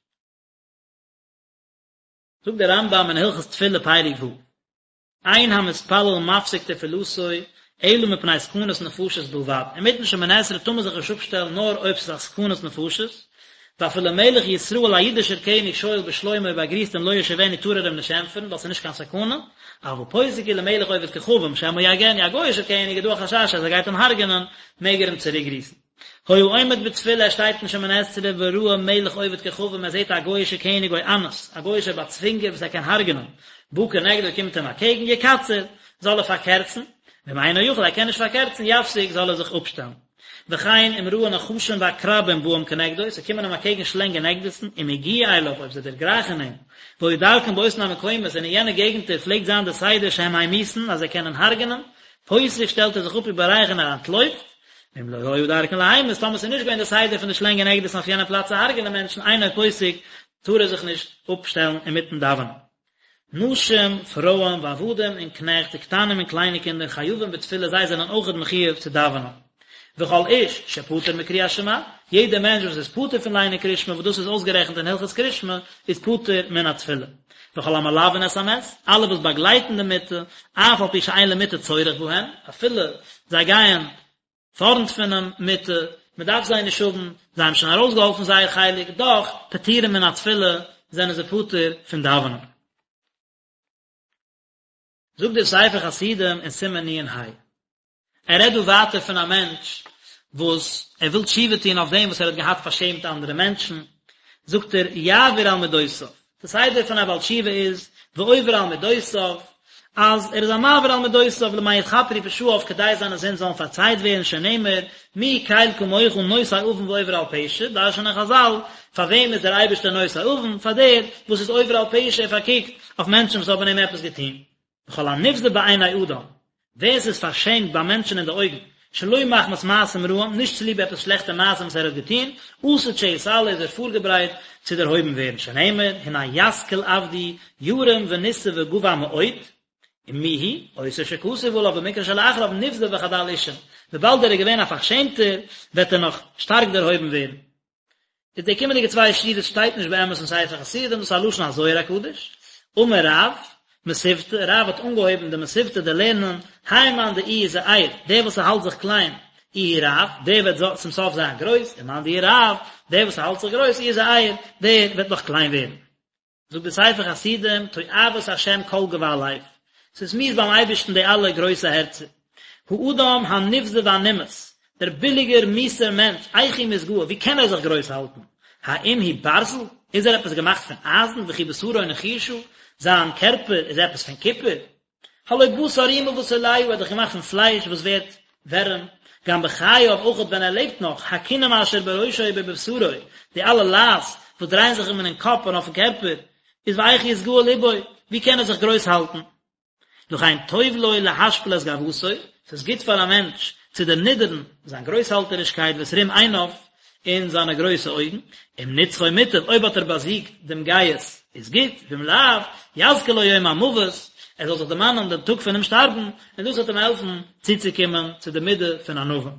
זאגט דער רמב"ם אין הלכות תפילה פרק ו'. אין המתפלל מפסיק תפילתו אלא מפני סכנת נפשות בלבד, אינמיטן שמונה עשרה טאר מען זיך נישט אפשטעלן נאר אויב ס'איז א סכנת נפשות, ואפילו מלך ישראל א אידישער קעניג שואל בשלומו אויב ער גריסט אים לא ישיבנו טאר ער אים נישט ענטפערן ווייל ס'איז נישט קיין סכנה, אבל פוסק הוא למלך עובד כוכבים שמא יהרגנו א גוי'אישער קעניג איז דא א חשש אז ער גייט אים הרג'נען מעג ער אים צוריק גריסן. היה עומד בתפילה ער שטייט אין שמונה עשרה וראה מלך עובד כוכבים ער זעט א גוי'אישע קעניג או אנס א גוי'אישער באצווינגער וואס ער קען הרג'נען בא כנגדו קומט אים אקעגן יקצר זאל ער פארקערצן ואם אינו יכול ער קען נישט פארקערצן יפסיק זאל ער זיך אפשטעלן וכן אם ראה נחשים ועקרבים באים כנגדו ס'קומען אים אקעגן שלענג און עקדיסן אם הגיעו אליו אויב זיי דערגרייכן אים והיה דרכן באותן המקומות און אין יענע געגנטער פלעגט זיין די סדר שהם ממיתין אז זיי קענען הרג'נען פוסק שטעלט ער זיך אפ ובורח און ער אנטלויפט ואם לא היה דרכן להמית, טאמער ס'איז נישט געווען די סדר פון די שלענג און עקדיסן אויף יענע פלאץ צו הרג'נען מענטשן אינו פוסק, טאר ער זיך נישט אפשטעלן אינמיטן דאווענען. נשים, פרויען, ועבדים און קנעכט, וקטנים און קליינע קינדער, חייבים בתפילה, זיי זענען אויכעט מחויב צו דאווענען. וכל איש שפטור מקריאת שמע, יעדער מענטש וואס איז פטור פון ליינען קריאת שמע, וואס דאס איז אויסגערעכנט אין הלכות קריאת שמע, איז פטור מן התפילה. וכל המלווין את המת, אלע וואס באגלייטן די מיטה, אף על פי שאין למיטה צורך בהם, אפילו זיי גייען פארנט פונעם מיטה, מען דארף זיי נישט האבן, זיי האבן שוין ארויסגעהאלפן זייער חלק, דאך, פטורים מן התפילה, זענען זיי פטור פון דאווענען. זאגט דער ספר חסידים אין סימן נ"ה. ער רעדט דא ווייטער פון א מענטש וואס ער וויל תשובה טון אויף דעם וואס ער האט געהאט פארשעמט אנדערע מענטשן, זאגט ער, יעבור על מדותיו, די סדר פון א בעל תשובה איז, ועובר על מדותיו, אז ער איז א מעביר על מדותיו למען יכפרו פשעיו כדי זיינע זינד זאלן פארצייט ווערן שנאמר, מי קל כמוך נושא עון ועובר על פשע, דרש'נען חז"ל, פאר וועם איז דער אייבערשטער נושא עון? פאר דער וואס איז עובר על פשע, ער פארקוקט אויף מענטשן וואס האבן אים עפעס געטון. וכל הנבזה בעיני אדם, ווער ס'איז פארשעמט ביי מענטשן אין די אויגן, שלא מחמת מעשים רעים, נישט צוליב עפעס שלעכטע מעשים וואס ער האט געטון, עתיד שיתעלה איז ער פארגעברייט צו דערהויבן ווערן, שנאמר, הנה ישכיל עבדי ירום ונשא וגבה מאוד, ומי הוא, אותו שכתוב עליו במקרא שלאחריו נבזה וחדל אישים, וויבאלד ער איז געווען א פארשעמטער, וועט ער נאך שטארק דערהויבן ווערן. איז די קומענדיגע צוויי שורות שטייט נישט באמת אין ספר חסידים, דאס איז א לשון הזוהר הקדוש, אמר רב, מתיבתא, רב האט אנגעהויבן די מתיבתא די לערנען, האי מאן דאיהו זעיר, דער וואס ער האלט זיך קליין, איהו רב, דער וועט צום סוף זיין גרויס, ומאן דאיהו רב, דער וואס ער האלט זיך גרויס, איהו זעיר, דער וועט נאך קליין ווערן. זאגט דער ספר חסידים, תועבת השם כל גבה לב, ס'איז מיאוס ביים אייבערשטן די אלע גרויסע הערצער. האדם הנבזה והנמאס, דער ביליגער מיאוסער מענטש, איך הוא מתגאה, ווי קען ער זיך גרויס האלטן? האם הוא ברזל? איז ער עפעס געמאכט פון אייזן, וכי בשרו נחושה? זיין קערפער איז עפעס פון קופער? הלא בשר רימה ותולעה ער האט דאך געמאכט פון פלייש וואס ווערט ווערעם, גם בחייו אויכעט ווען ער לעבט נאך, הכינים אשר בראשו ובבשרו, די אלע לייז וואס דרייען זיך אים אינעם קאפ און אויפן קערפער, איז ואיך יתגאה לבו, ווי קען ער זיך גרויס האלטן? לכן טוב לו להשפיל את גאוותו, ס'איז גוט פאר א מענטש צו דערנידערן זיין גרויסהאלטערישקייט ואת רום עיניו, און זיינע גרויסע אויגן, אם נצחו מוטב, אויב האט ער באזיגט דעם גאות, איז גוט, ואם לאו, יזכיר לו יום המוות, ער זאל זיך דערמאנען דעם טאג פונעם שטארבן, און דאס וועט אים העלפן צוצוקומען צו די מידה פון ענווה.